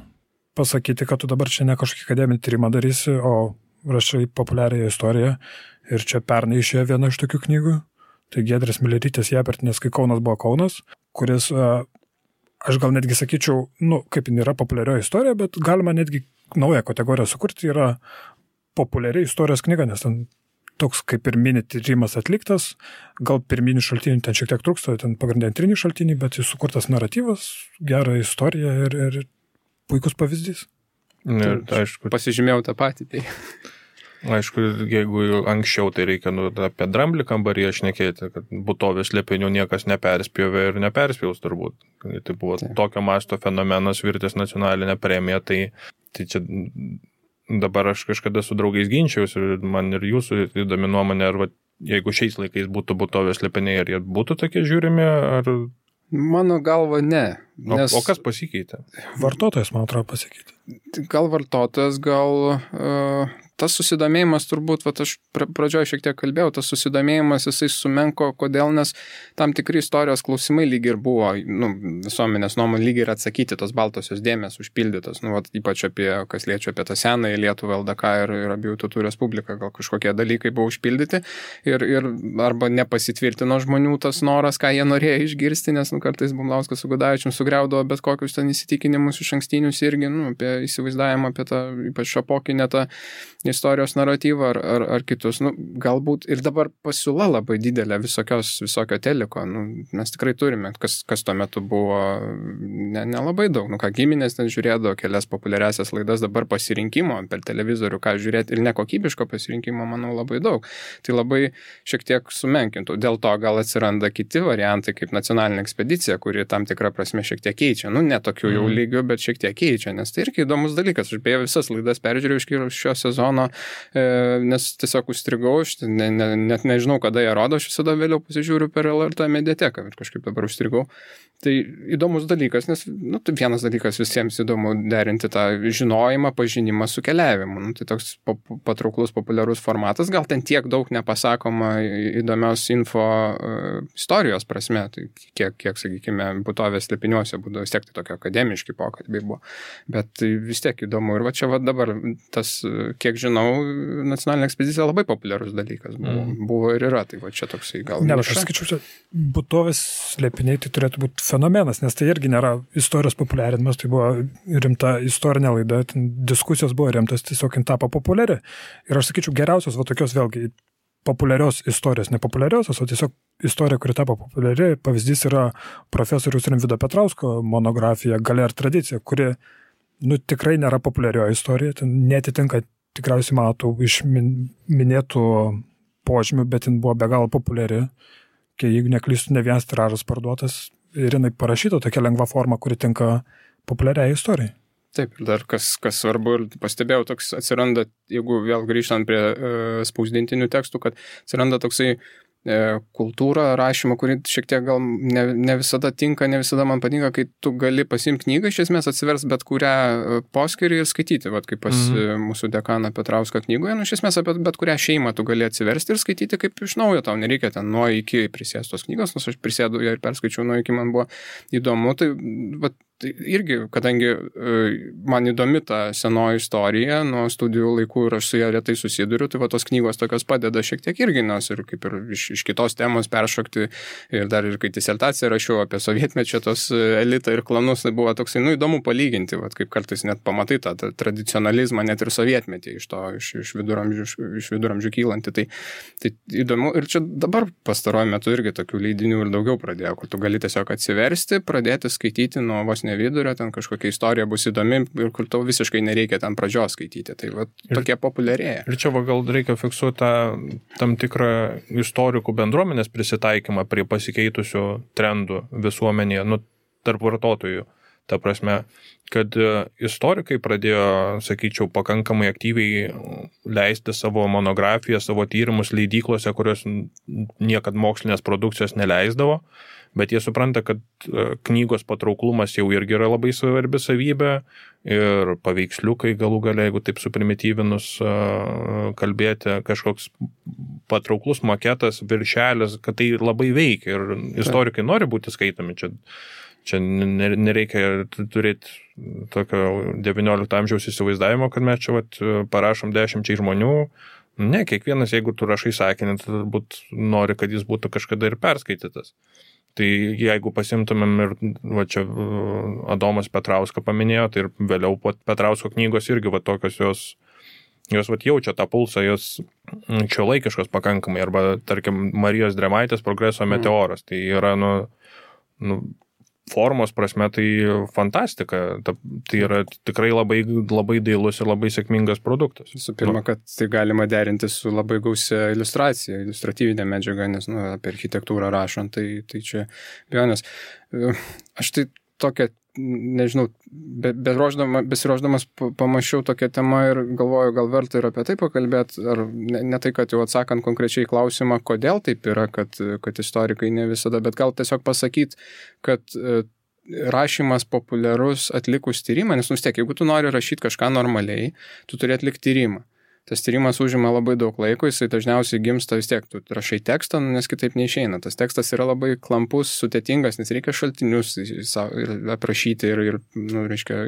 pasakyti, kad tu dabar čia ne kažkokį akademinį tyrimą darysi, o rašai populiariąją istoriją ir čia pernai išėjo viena iš tokių knygų. Tai Giedrės Milerytės Japertinės, kai Kaunas buvo Kaunas, kuris, aš gal netgi sakyčiau, kaip jin yra populiarioji istorija, bet galima netgi naują kategoriją sukurti, yra populiari istorijos knyga, nes ten toks kaip ir mini tyrimas atliktas, gal pirminių šaltinių ten šiek tiek trūksta, ten pagrindiniai antriniai šaltiniai, bet jis sukurtas naratyvas, gera istorija ir puikus pavyzdys. Ne, aišku. Pasižymėjau tą patį. Tai. Aišku, jeigu anksčiau tai reikia apie Dramblį kambaryje šnekėti, kad būtovės slėpinių niekas neperspjovė ir neperspjaus turbūt. Tai buvo tokio masto fenomenas, virtęs nacionalinę premiją, tai čia dabar aš kažkada su draugais ginčiausi ir man ir jūsų įdomi nuomonė, ar jeigu šiais laikais būtų būtovės slėpiniai, ar jie būtų tokie žiūrimi, ar... Mano galva ne. Nes... O kas pasikeitė? Vartotojas, man atrodo, pasikeitė. Gal vartotojas, tas susidomėjimas turbūt, aš pradžioje šiek tiek kalbėjau, tas susidomėjimas jisai sumenko, kodėl, nes tam tikri istorijos klausimai lyg ir buvo, visuomenės nuomonė lyg ir atsakyti, tos baltosios dėmės užpildytos, ypač kas liečia apie tą senąją Lietuvą, LDK ir abiejų tautų respubliką, gal kažkokie dalykai buvo užpildyti ir arba nepasitvirtino žmonių tas noras, ką jie norėjo išgirsti, nes kartais Bumlauskas su Gudavičium sugriaudavo bet kokius ten įsitikinimus iš ankstinius irgi, apie įsivaizdavimą apie tą, ypač šapokinę tą istorijos naratyvą ar kitus. Galbūt ir dabar pasiūla labai didelė visokio teliko. Mes tikrai turime, kas tuo metu buvo nelabai daug. Giminės ten žiūrėdavo kelias populiariasias laidas, dabar pasirinkimo per televizorių, ką žiūrėti ir nekokybiško pasirinkimo, manau, labai daug. Tai labai šiek tiek sumenkintų. Dėl to gal atsiranda kiti variantai, kaip nacionalinė ekspedicija, kuri tam tikrą prasme šiek tiek keičia. Ne tokių jau lygių, bet šiek tiek keičia, nes tai irgi įdomus dalykas. Aš beje visas laidas peržiūrėjau iš šio sezono, nes tiesiog užstrigau, net nežinau, kada jie rodo, aš visada vėliau pasižiūriu per LRT mediateką ir kažkaip dabar užstrigau. Tai įdomus dalykas, nes tai vienas dalykas visiems įdomu derinti tą žinojimą, pažinimą su keliavimu. Tai toks patrauklus, populiarus formatas, gal ten tiek daug nepasakoma įdomios info istorijos prasme, tai kiek sakykime, būtovės slėpiniuose būdavo, vis tiek tai tokie akademiški pokalbiai buvo, bet tai vis tiek įdomu. Ir čia dabar tas, kiek žinau, nacionalinė ekspedicija labai populiarus dalykas buvo ir yra, tai čia toksai gal... Ne, aš skaičiu, čia būtovės slėpiniai tai turėtų būti fenomenas, nes tai irgi nėra istorijos populiarinimas, tai buvo rimta istorinė laida, diskusijos buvo rimtas, tiesiog tapo populiari. Ir aš sakyčiau, geriausios tokios vėlgi populiarios istorijos, nepopuliariosios, o tiesiog istorija, kuri tapo populiari, pavyzdys yra profesoriaus Rimvydo Petrausko monografija Galia ir tradicija, kuri tikrai nėra populiarioji istorija, ten netitinka tikriausiai matų iš minėtų požymių, bet jin buvo be galo populiari, kai jeigu neklystu, ne vienas tiražas parduotas ir jinai parašyta tokia lengva forma, kuri tinka populiariai istorijai. Taip, ir dar kas svarbu ir pastebėjau, toks atsiranda, jeigu vėl grįžtant prie spausdintinių tekstų, kad atsiranda toksai kultūra rašymo, kuri šiek tiek gal ne visada tinka, ne visada man patinka, kai tu gali pasimti knygą, iš esmės atsivers bet kurią poskyrį ir skaityti, kaip pas mūsų dekaną Petrauską knygoje, iš esmės apie bet kurią šeimą tu gali atsiversti ir skaityti kaip iš naujo, tau nereikia ten nuo iki prisėstos knygos, nors aš prisėdu ir perskaičiau nuo iki, man buvo įdomu, tai tai irgi, kadangi man įdomi ta senoji istorija nuo studijų laikų ir aš su ją retai susiduriu, tai va tos knygos tokios padeda šiek tiek irgi, nes ir kaip ir iš kitos temos peršokti ir dar ir kai disertaciją rašiau apie sovietmečio tos elitą ir klanus, tai buvo toksai, įdomu palyginti, va, kaip kartais net pamatai tą tradicionalizmą net ir sovietmetį iš viduramžių kylantį. Tai įdomu ir čia dabar pastaruoju metu irgi tokių leidinių ir daugiau pradėjo, kur tu gali tiesiog atsiversti, pradėti skaityti nuo vos ne vidurio, ten kažkokia istorija bus įdomi ir kur tau visiškai nereikia ten pradžios skaityti. Tai va, tokie populiarėja. Ir čia gal reikia fiksuoti tam tikrą istorikų bendruomenės prisitaikymą prie pasikeitusių trendų visuomenėje, tarp vartotojų. Ta prasme, kad istorikai pradėjo, sakyčiau, pakankamai aktyviai leisti savo monografiją, savo tyrimus leidyklose, kurios niekad mokslinės produkcijos neleisdavo, bet jie supranta, kad knygos patrauklumas jau irgi yra labai svarbi savybė ir paveiksliukai galų gale, jeigu taip suprimityvinus kalbėti, kažkoks patrauklus maketas, viršelis, kad tai labai veikia ir istorikai nori būti skaitomi. Čia nereikia turėti tokio 19 amžiaus įsivaizdavimo, kad mes čia parašom 10 žmonių. Ne, kiekvienas, jeigu tu rašai sakinį, tai turbūt nori, kad jis būtų kažkada ir perskaitytas. Tai jeigu pasimtumėm ir čia Adomas Petrauską paminėjo, tai ir vėliau Petrausko knygos irgi tokios jos jaučia tą pulsą, jos šiuolaikiškos pakankamai, arba tarkim Marijos Drėmaitės Progreso meteoras. Tai yra formos prasme tai fantastika, tai yra tikrai labai, labai dailus ir labai sėkmingas produktas. Visų pirma, kad tai galima derinti su labai gausia iliustracija, iliustratyvinė medžiaga, nes apie architektūrą rašant, tai čia bejonės. Aš tai tokią, nežinau, besiruošdamas pamačiau tokią temą ir galvoju, gal verta ir apie tai pakalbėti, ar ne tai, kad jau atsakant konkrečiai klausimą, kodėl taip yra, kad istorikai ne visada, bet gal tiesiog pasakyti, kad rašymas populiarus atlikus tyrimą, nes vis tiek, jeigu tu nori rašyti kažką normaliai, tu turi atlikti tyrimą. Tas tyrimas užima labai daug laiko, jisai dažniausiai gimsta vis tiek, tu rašai tekstą, nes kitaip neišeina. Tas tekstas yra labai klampus, sudėtingas, nes reikia šaltinius aprašyti ir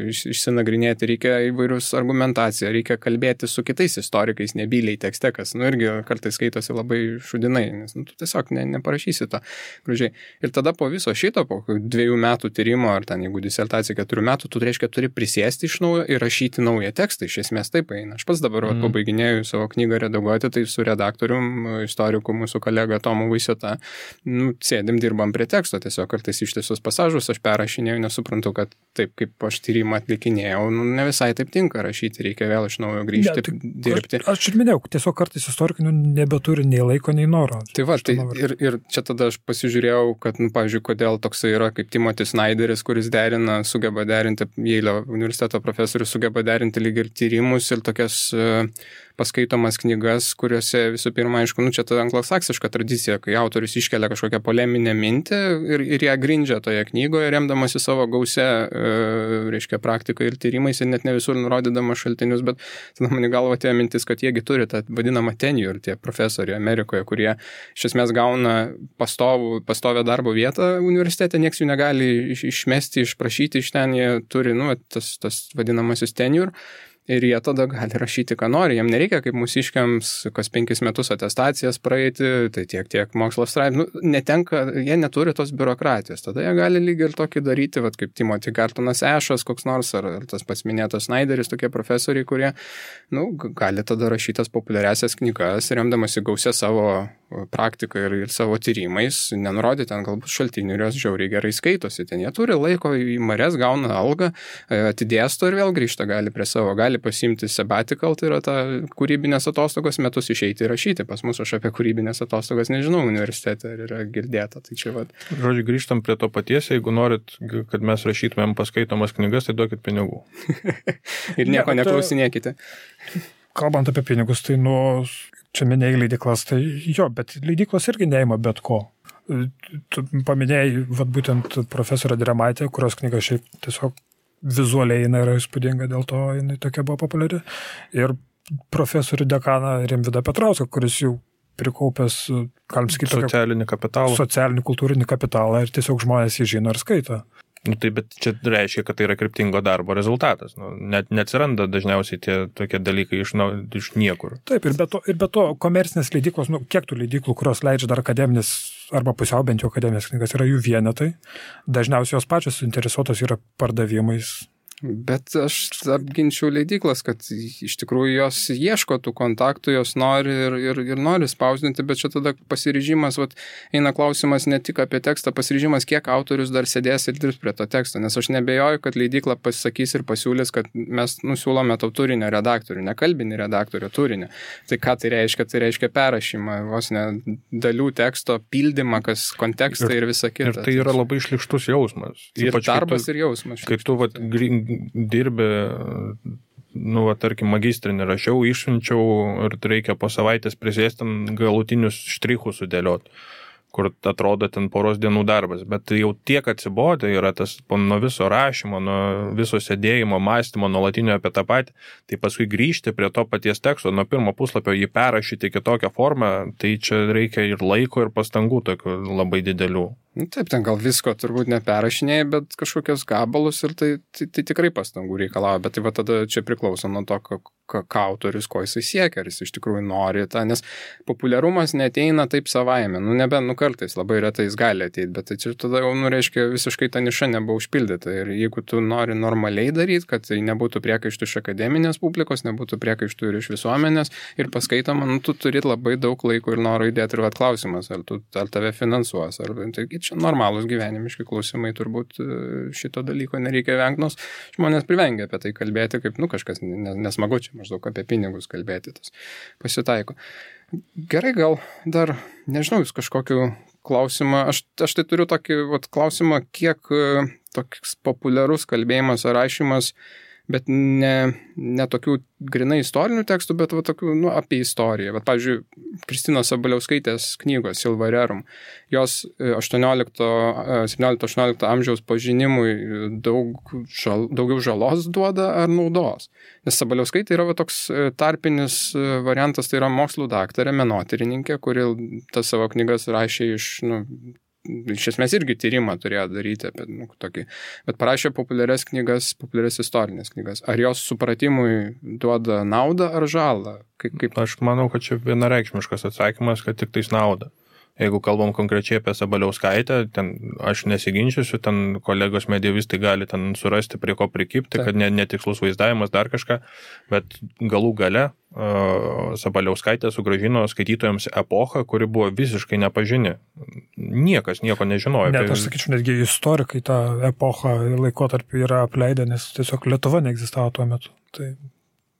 išsinagrinėti, reikia įvairius argumentaciją, reikia kalbėti su kitais istorikais, nebyliai tekste, kas irgi kartais skaitosi labai šudinai, nes tu tiesiog neparašysi to gražiai. Ir tada po viso šito, po 2 metų tyrimo, ar ten jeigu disertacija 4 metų, tu reiškia turi prisėsti iš naujo ir rašyti naują tekstą, iš esmės taip eina. Aš pats dabar pabaiginėjau savo knygą redaguoti, tai su redaktorium, istoriku, mūsų kolega Tomu Vaisiota, sėdim, dirbam prie teksto, tiesiog kartais ištisus pasažus aš perrašinėjau, nesuprantu, kad taip, kaip aš tyrimą atlikinėjau, ne visai taip tinka rašyti, reikia vėl iš naujo grįžti ir dirbti. Aš ir minėjau, tiesiog kartais istorikai nebeturi nei laiko, nei noro. Tai va, ir čia tada aš pasižiūrėjau, kad, pavyzdžiui, kodėl toksai yra kaip Timothy Snyderis, kuris sugeba derinti, Jeilio universiteto profesorius sugeba derinti lyg ir tyrimus ir tokias paskaitomas knygas, kuriuose visų pirma, aišku, čia ta anglosaksiška tradicija, kai autorius iškelia kažkokią poleminę mintį ir ją grindžia toje knygoje, remdamasi savo gausia, praktiką ir tyrimais ir net ne visur nurodydamas šaltinius, bet tada man į galvą atėjo mintis, kad jiegi turi tą vadinamą tenure, tie profesoriai Amerikoje, kurie iš esmės gauna pastovią darbo vietą universitete, nieks jų negali išmesti, išprašyti iš ten, jie turi, tas vadinamasis tenure. Ir jie tada gali rašyti, ką nori. Jam nereikia, kaip mūsiškiams, kas 5 metus atestacijas praeiti, tai tiek mokslo straipsnių. Jie neturi tos biurokratijos. Tada jie gali lygiai ir tokį daryti, kaip Timothy Gartonas Ešas, koks nors, ar tas pats minėtas Snyderis, tokie profesoriai, kurie gali tada rašytas populiariasias knygas, remdamasi gausia savo praktiką ir savo tyrimais, nenurodyti ten galbūt šaltinių ir jos žiauriai gerai skaitosi. Ten jie turi laiko į mares, gauna algą, atidėsto ir vėl grįžta gali prie savo. Gali pasiimti sabbatical, tai yra ta kūrybinės atostogos metus išeiti ir rašyti. Pas mus aš apie kūrybinės atostogas nežinau universitete, ar yra girdėta. Tai čia Žodžiu, grįžtam prie to paties, jeigu norit, kad mes rašytumėm paskaitomas knygas, tai duokit pinigų. Ir nieko neklausinėkite. Kalbant apie pinigus, tai čia minėjai leidyklas, tai jo, bet leidyklos irgi neima bet ko. Tu paminėjai būtent profesorę Drėmaitę, kurios knyga šiaip tiesiog vizualiai jinai yra įspūdinga, dėl to jinai tokia buvo populiari. Ir profesorių dekaną Rimvydą Petrauską, kuris jau prikaupęs, galim sakyti, socialinį kapitalą. Socialinį kultūrinį kapitalą ir tiesiog žmonės jį žino ir skaito. Nu, tai bet čia reiškia, kad tai yra kryptingo darbo rezultatas. Nu, net neatsiranda dažniausiai tie tokie dalykai iš niekur. Taip, ir be to komercinės leidyklos, kiek tų leidyklų, kurios leidžia dar akademinės arba pusiau bent jau akademinės knygas, yra jų vienetai. Dažniausiai jos pačios suinteresuotos yra pardavimais. Bet aš apginčiau leidyklas, kad iš tikrųjų jos ieško tų kontaktų, jos nori ir nori spausdinti, bet čia tada pasiryžimas, eina klausimas ne tik apie tekstą, pasiryžimas, kiek autorius dar sėdės ir dirbs prie to teksto, nes aš nebejoju, kad leidykla pasakys ir pasiūlys, kad mes siūlome tau turinio redaktorių, ne kalbinį redaktorių, turinio. Tai ką tai reiškia? Tai reiškia perrašymą, vos ne dalių teksto, pildymą, kas kontekstai ir visa kita. Ir tai yra labai šlykštus jausmas. Ir darbas ir jausmas. Kaip tu dirbi, tarkim, magistrinį rašiau, išsiunčiau ir reikia po savaitės prisėsti galutinius štrichus sudėlioti, kur atrodo ten poros dienų darbas, bet jau tiek atsibodė yra tas nuo viso rašymo, nuo viso sėdėjimo, mąstymo, nuolatinio apie tą patį, tai paskui grįžti prie to paties teksto, nuo pirmo puslapio jį perrašyti kitokią formą, tai čia reikia ir laiko, ir pastangų tokių labai didelių. Taip, ten gal visko turbūt neperrašinėjai, bet kažkokios gabalus ir tai tikrai pastangų reikalauja, bet tai tada čia priklauso nuo to, ką autorius, ko jisai siekia, ar jis iš tikrųjų nori tą, nes populiarumas neteina taip savaime, kartais labai retai jis gali ateiti, bet tai čia tada jau, reiškia, visiškai ta niša nebuvo užpildyta ir jeigu tu nori normaliai daryti, kad tai nebūtų priekaištų iš akademinės publikos, nebūtų priekaištų ir iš visuomenės ir paskaitoma, tu turi labai daug laiko ir noro įdėti ir klausimas, ar tave finansuos, ar tai čia normalūs gyvenimiški klausimai, turbūt šito dalyko nereikia vengti, nors žmonės privengia apie tai kalbėti, kaip kažkas nesmagu čia maždaug apie pinigus kalbėti, tas pasitaiko. Gerai, gal dar, nežinau, jūs kažkokiu klausimą, aš tai turiu tokį klausimą, kiek toks populiarus kalbėjimas ar rašymas, bet ne tokių grinai istorinių tekstų, bet tokių, apie istoriją. Pavyzdžiui, Kristinos Sabaliauskaitės knygos Silva Rerum, jos 17-18 amžiaus pažinimui daugiau žalos duoda ar naudos. Nes Sabaliauskaitė yra toks tarpinis variantas, tai yra mokslų daktarė, menotyrininkė, kuri tas savo knygas rašė iš esmės irgi tyrimą turėjo daryti apie tokį, bet parašė populiarias istorinės knygas. Ar jos supratimui duoda naudą ar žalą? Kaip? Aš manau, kad čia vienareikšmiškas atsakymas, kad tik tais nauda. Jeigu kalbam konkrečiai apie Sabaliauskaitę, ten aš nesiginčiusiu, ten kolegos medievistai gali ten surasti prie ko prikipti, kad netikslus vaizdavimas, dar kažką, bet galų gale Sabaliauskaitė sugrąžino skaitytojams epochą, kuri buvo visiškai nepažini. Niekas nieko nežinojo. Net aš sakyčiau, netgi istorikai tą epochą laikotarpį yra apleidę, nes tiesiog Lietuva neegzistavo tuo metu. Tai...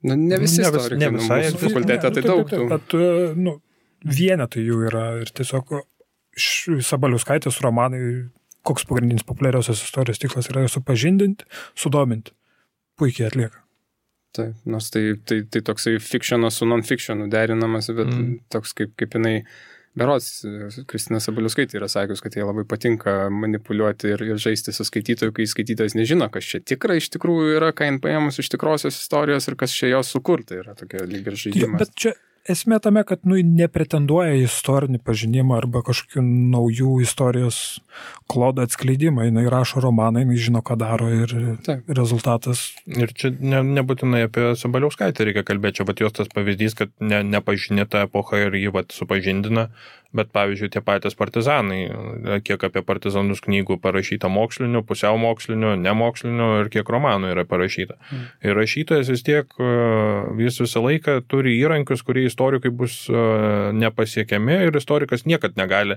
ne visi istorikai, mūsų fakultete tai daug. Bet vienetai jų yra ir tiesiog Sabaliauskaitės romanai, koks pagrindinis populiariausios istorijos tikslas yra supažindinti, sudominti. Puikiai atlieka. Taip, nors tai toksai fikšionas su non-fikšionu derinamas, bet toks kaip jinai, berods, Kristina Sabaliauskaitė yra sakius, kad jai labai patinka manipuliuoti ir žaisti su skaitytoju, kai skaitytojas nežino, kas čia tikra iš tikrųjų yra, ką jin paėmus iš tikrosios istorijos ir kas čia jos sukurta yra tokia lyg ir žaidimas. Bet čia esmė tame, kad nepretenduoja į istorinį pažinimą arba kažkokių naujų istorijos klodą atskleidimą. Jis rašo romaną, jis žino, ką daro ir rezultatas. Ir čia nebūtinai apie Sabaliauskaitę reikia kalbėti, čia jos tas pavyzdys, kad nepažinė tą epochą ir jį supažindina, bet pavyzdžiui tie patys partizanai, kiek apie partizanus knygų parašyta mokslinių, pusiau mokslinių, nemokslinių ir kiek romanų yra parašyta. Ir rašytojas vis tiek, jis visą laiką turi įrankius, kurie istorikai bus nepasiekiami ir istorikas niekad negali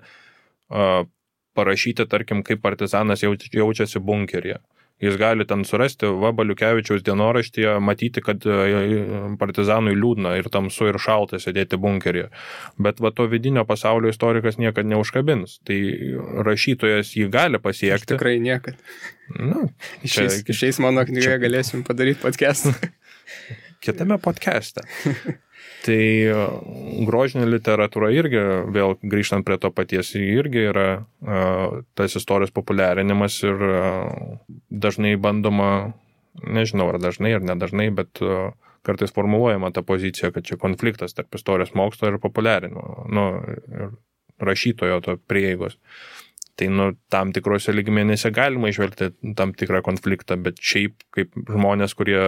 parašyti, tarkim, kaip partizanas jaučiasi bunkeryje. Jis gali ten surasti Baliukevičiaus dienoraštyje, matyti, kad partizanui liūdna ir tamsu ir šalta sėdėti bunkeryje. Bet to vidinio pasaulio istorikas niekad neužkabins. Tai rašytojas jį gali pasiekti. Aš tikrai niekad. Išeis mano knygoje galėsim padaryti podcastą. Kitame podcast'e. Tai grožinė literatūra irgi, vėl grįžtant prie to paties, irgi yra tas istorijos populiarinimas ir dažnai bandoma, nežinau ar dažnai ar nedažnai, bet kartais formuluojama ta pozicija, kad čia konfliktas tarp istorijos mokslo ir populiarinimo, ir rašytojo to prieigos. Tai tam tikrose lygmenyse galima išvelgti tam tikrą konfliktą, bet šiaip kaip žmonės, kurie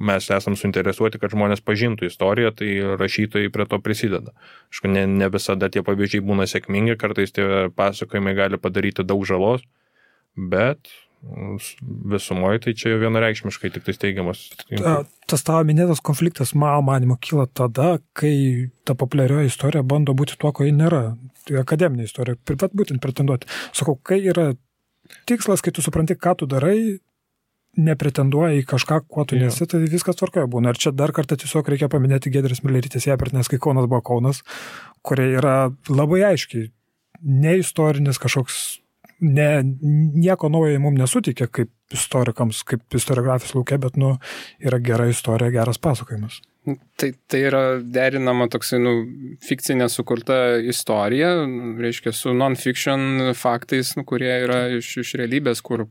mes esam suinteresuoti, kad žmonės pažintų istoriją, tai rašytojai prie to prisideda. Aišku, ne visada tie pavyzdžiai būna sėkmingi, kartais tie pasakojimai gali padaryti daug žalos, bet visumoje tai čia vienareikšmiškai tik tai teigiamas. Tas tavo minėtas konfliktas, mano manimo, kyla tada, kai ta populiarioji istorija bando būti tuo, ko ji nėra. Tai akademinė istorija, būtent pretenduoti. Sakau, kai yra tikslas, kai tu supranti, ką tu darai, nepretenduoja į kažką, kuo tu nesi, tai viskas tvarkoje būna. Ir čia dar kartą tiesiog reikia paminėti Giedrės Milerytės Jepertienės, kai Kaunas buvo Kaunas, kurie yra labai aiškiai neistorinis kažkoks nieko naujo mums nesutikė kaip istorikams, kaip istoriografijos lauke, bet yra gera istorija, geras pasakojimas. Tai yra derinama toksai, fikcinė sukurta istorija, reiškia, su non-fiction faktais, kurie yra iš realybės, kur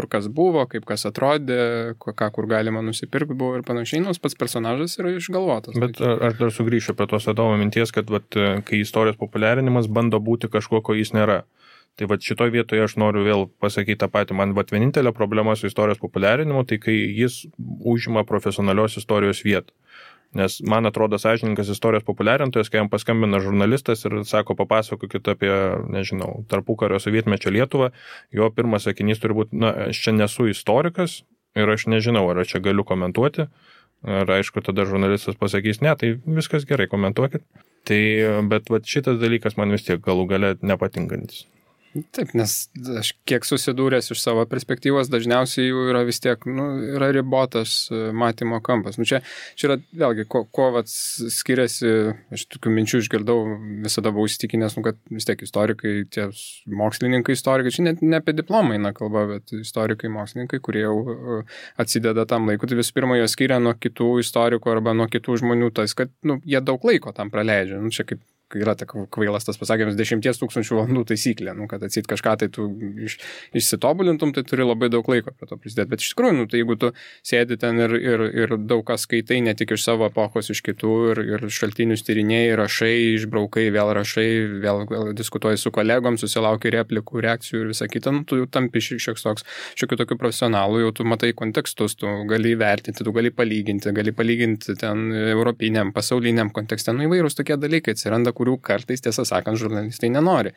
kas buvo, kaip kas atrodė, kur galima nusipirkti buvo ir panašiai, nors pats personažas yra išgalvotas. Bet aš dar sugrįšiu prie tos Adomo minties, kad kai istorijos populiarinimas bando būti kažkuo, ko jis nėra. Tai šitoj vietoje aš noriu vėl pasakyti tą patį. Man vienintelė problema su istorijos populiarinimu, tai kai jis užima profesionalios istorijos vietą. Nes man atrodo sąžininkas istorijos populiarintojas, kai jam paskambina žurnalistas ir sako, papasakokit apie, nežinau, tarpukario sovietmečio Lietuvą, jo pirmas sakinys turi būti, aš čia nesu istorikas ir aš nežinau, ar aš čia galiu komentuoti. Ir aišku, tada žurnalistas pasakys, ne, tai viskas gerai, komentuokit. Bet šitas dalykas man vis tiek galų gale nepatinkantis. Taip, nes aš kiek susidūręs iš savo perspektyvos, dažniausiai jų yra vis tiek, yra ribotas matymo kampas. Čia yra vėlgi, ko skiriasi, aš tokių minčių išgirdau, visada buvau įsitikinęs, kad vis tiek istorikai, tie mokslininkai istorikai, čia net ne apie diplomą eina kalba, bet istorikai, mokslininkai, kurie jau atsideda tam laiku, tai visų pirma, jie skiria nuo kitų istorikų arba nuo kitų žmonių, tas, kad jie daug laiko tam praleidžia. Čia kaip yra kvailas tas pasakymas 10 000 valandų taisyklė, kad atsit kažką tai tu išsitobulintum, tai turi labai daug laiko prie to prisidėti. Bet iš tikrųjų, tai jeigu tu sėdi ten ir daug kas skaitai, ne tik iš savo epochos, iš kitų, ir šaltinius tyrinėjai, rašai, išbraukai, vėl rašai, vėl diskutuoji su kolegom, susilauki replikų, reakcijų ir visą kitą, tu jau tampi šiokių tokių profesionalų, jau tu matai kontekstus, tu gali įvertinti, tu gali palyginti ten europiniam, pasauliniam kontekste, įvairūs tokie dalykai atsiranda, kurių kartais, tiesą sakant, žurnalistai nenori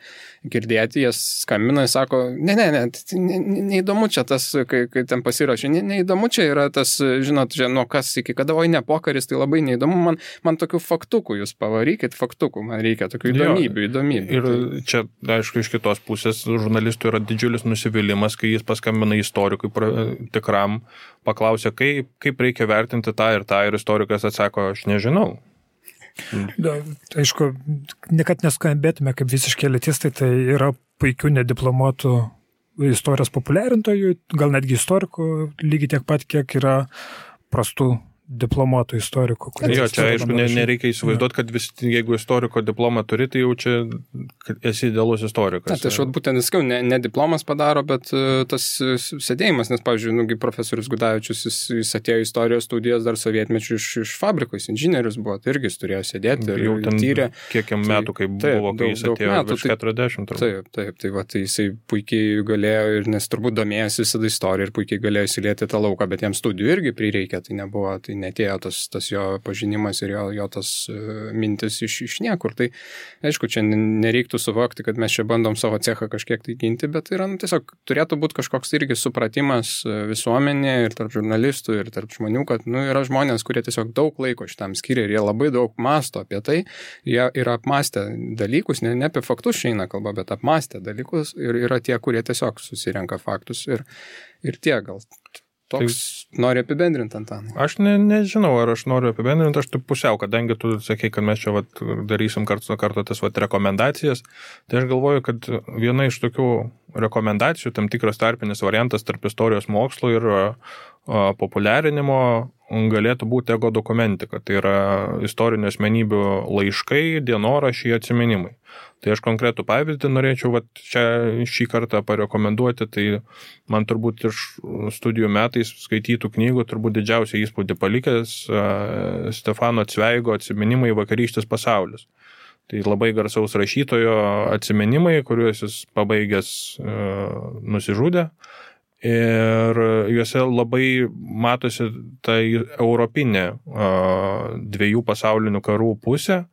girdėti, jie skambina ir sako, neįdomu čia tas, kai ten pasirašė, neįdomu čia yra tas, žinot, nuo kas iki kada, oi ne pokaris, tai labai neįdomu, man tokių faktukų, jūs pavarykit faktukų, man reikia tokių įdomybių. Ir čia, aišku, iš kitos pusės žurnalistų yra didžiulis nusivylimas, kai jis paskambina istorikui tikram, paklausia, kaip reikia vertinti tą ir istorikas atsako, aš nežinau. Aišku, kad neskambėtume kaip visiškai elitistai, tai yra puikių nediplomuotų istorijos populiarintojų, gal netgi istorikų, lygiai tiek pat, kiek yra prastų diplomuotų istorikų. Jo, čia aišku, nereikia įsivaizduoti, kad jeigu istoriko diplomą turi, tai jau čia esi idealus istorikas. Tai aš būtent nesakiau, ne diplomas padaro, bet tas sėdėjimas, nes, pavyzdžiui, profesorius Gudavičius, jis atėjo istorijos studijas dar sovietmečių iš fabrikos, inžinierius buvo, tai irgi jis turėjo sėdėti ir jau ten tyrė. Kiek metų, kai buvo, kai jis atėjo virš 40. Tai jisai puikiai galėjo, ir nes turbūt domėjosi visada istoriją ir puikiai galėjo įsilieti tą lauką, bet jam studijų irgi prireikė, tai nebuvo, tai netėjo tas jo pažinimas ir jo tas mintis iš niekur. Tai aišku, čia nereiktų suvokti, kad mes čia bandom savo cechą kažkiek tai ginti, bet yra tiesiog turėtų būti kažkoks irgi supratimas visuomenė ir tarp žurnalistų ir tarp žmonių, kad yra žmonės, kurie tiesiog daug laiko šitam skiria ir jie labai daug masto apie tai, jie yra apmastę dalykus, ne apie faktus šiandien kalba, bet apmastę dalykus ir yra tie, kurie tiesiog susirenka faktus ir tie gal. Toks nori apibendrinti, Antanai? Aš nežinau, ar aš noriu apibendrinti, aš taip pusiau, kadangi tu sakei, kad mes čia darysim kartu tas rekomendacijas, tai aš galvoju, kad viena iš tokių rekomendacijų, tam tikras tarpinis variantas tarp istorijos mokslo ir populiarinimo galėtų būti ego dokumentika, tai yra istorinių asmenybių laiškai, dienoraščiai, atsiminimai. Tai aš konkretų pavyzdį norėčiau šį kartą parekomenduoti, tai man turbūt iš studijų metais skaitytų knygų turbūt didžiausią įspūdį palikęs Stefano Cveigo atsiminimai Vakarykštis pasaulis. Tai labai garsaus rašytojo atsiminimai, kuriuos jis pabaigęs nusižudė. Ir juose labai matosi ta europinė dviejų pasaulinių karų pusė.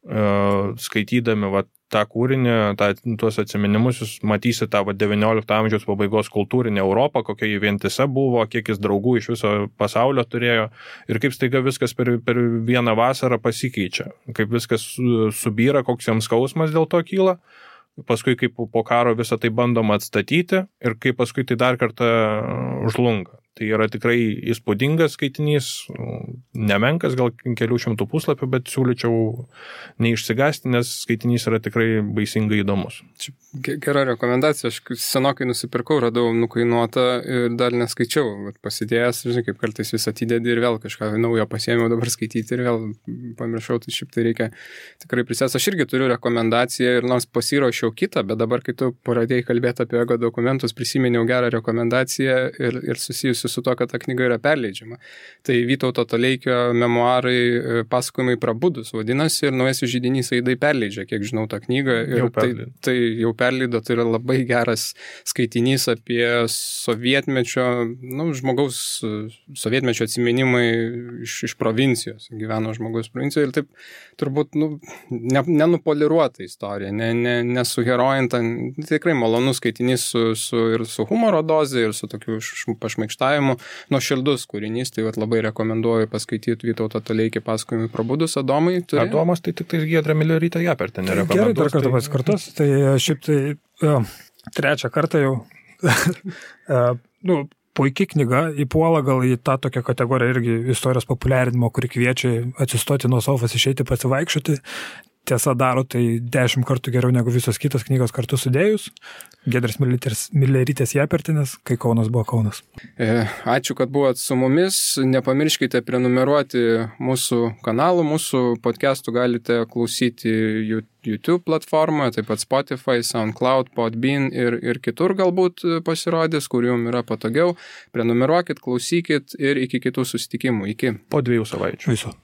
Skaitydami tą kūrinį, tuos atsiminimus, jūs matysi tą 19 amžiaus pabaigos kultūrinę Europą, kokia jį vientisa buvo, kiek jis draugų iš viso pasaulio turėjo ir kaip staiga viskas per vieną vasarą pasikeičia, kaip viskas subyra, koks jam skausmas dėl to kyla. Paskui kaip po karo visą tai bandoma atstatyti ir kaip paskui tai dar kartą žlunga. Tai yra tikrai įspūdingas skaitinys, nemenkas, gal kelių šimtų puslapių, bet siūlyčiau neišsigąsti, nes skaitinys yra tikrai baisingai įdomus. Gera rekomendacija, aš senokai nusipirkau, radau nukainuotą ir dar neskaičiau, bet pasidėjęs, žinai, kaip kartais vis atidedi ir vėl kažką naujo pasiėmiau dabar skaityti ir vėl pamiršau, tai šiaip tai reikia tikrai prisės. Aš irgi turiu rekomendaciją ir nors pasiruošiau kitą, bet dabar, kai tu pradėjai kalbėti apie ego dokumentus, prisiminiau gerą rekomendaciją ir susijusiu su to, kad ta knyga yra perleidžiama. Tai Vytauto Toleikio memuarai pasakojimai prabudus vadinasi ir Naujasis židinys Aidai perleidžia, kiek žinau, tą knygą. Ir tai jau perleido, tai yra labai geras skaitinys apie sovietmečio, žmogaus sovietmečio atsiminimai iš provincijos. Gyveno žmogus provincijoje ir taip turbūt nenupoliruota istorija, nesuherojinta. Tikrai malonus skaitinys ir su humoro doze ir su tokiu pašmaikštavimu. Nuoširdus kūrinys, tai labai rekomenduoju paskaityti Vytauto Toleikį pasakojimai prabudus. Adomai turi? Adomas tai tik Giedrė Milerytė Japertė nerekomenduos. Gerai, dar kartą pasikartos. Tai šiaip tai trečią kartą jau puikiai knyga, įpuola gal į tą tokią kategoriją irgi istorijos populiarinimo, kuri kviečia atsistoti nuo sofos, išeiti pasivaikščioti. Tiesa, daro tai 10 kartų geriau negu visos kitos knygos kartu sudėjus. Giedrės Milerytės Japertinės, kai Kaunas buvo Kaunas. Ačiū, kad buvot su mumis. Nepamirškite prenumeruoti mūsų kanalų. Mūsų podcastų galite klausyti YouTube platformoje, taip pat Spotify, SoundCloud, Podbean ir kitur galbūt pasirodys, kur jums yra patogiau. Prenumeruokit, klausykit ir iki kitų susitikimų. Iki. Po 2 savaičių. Viso.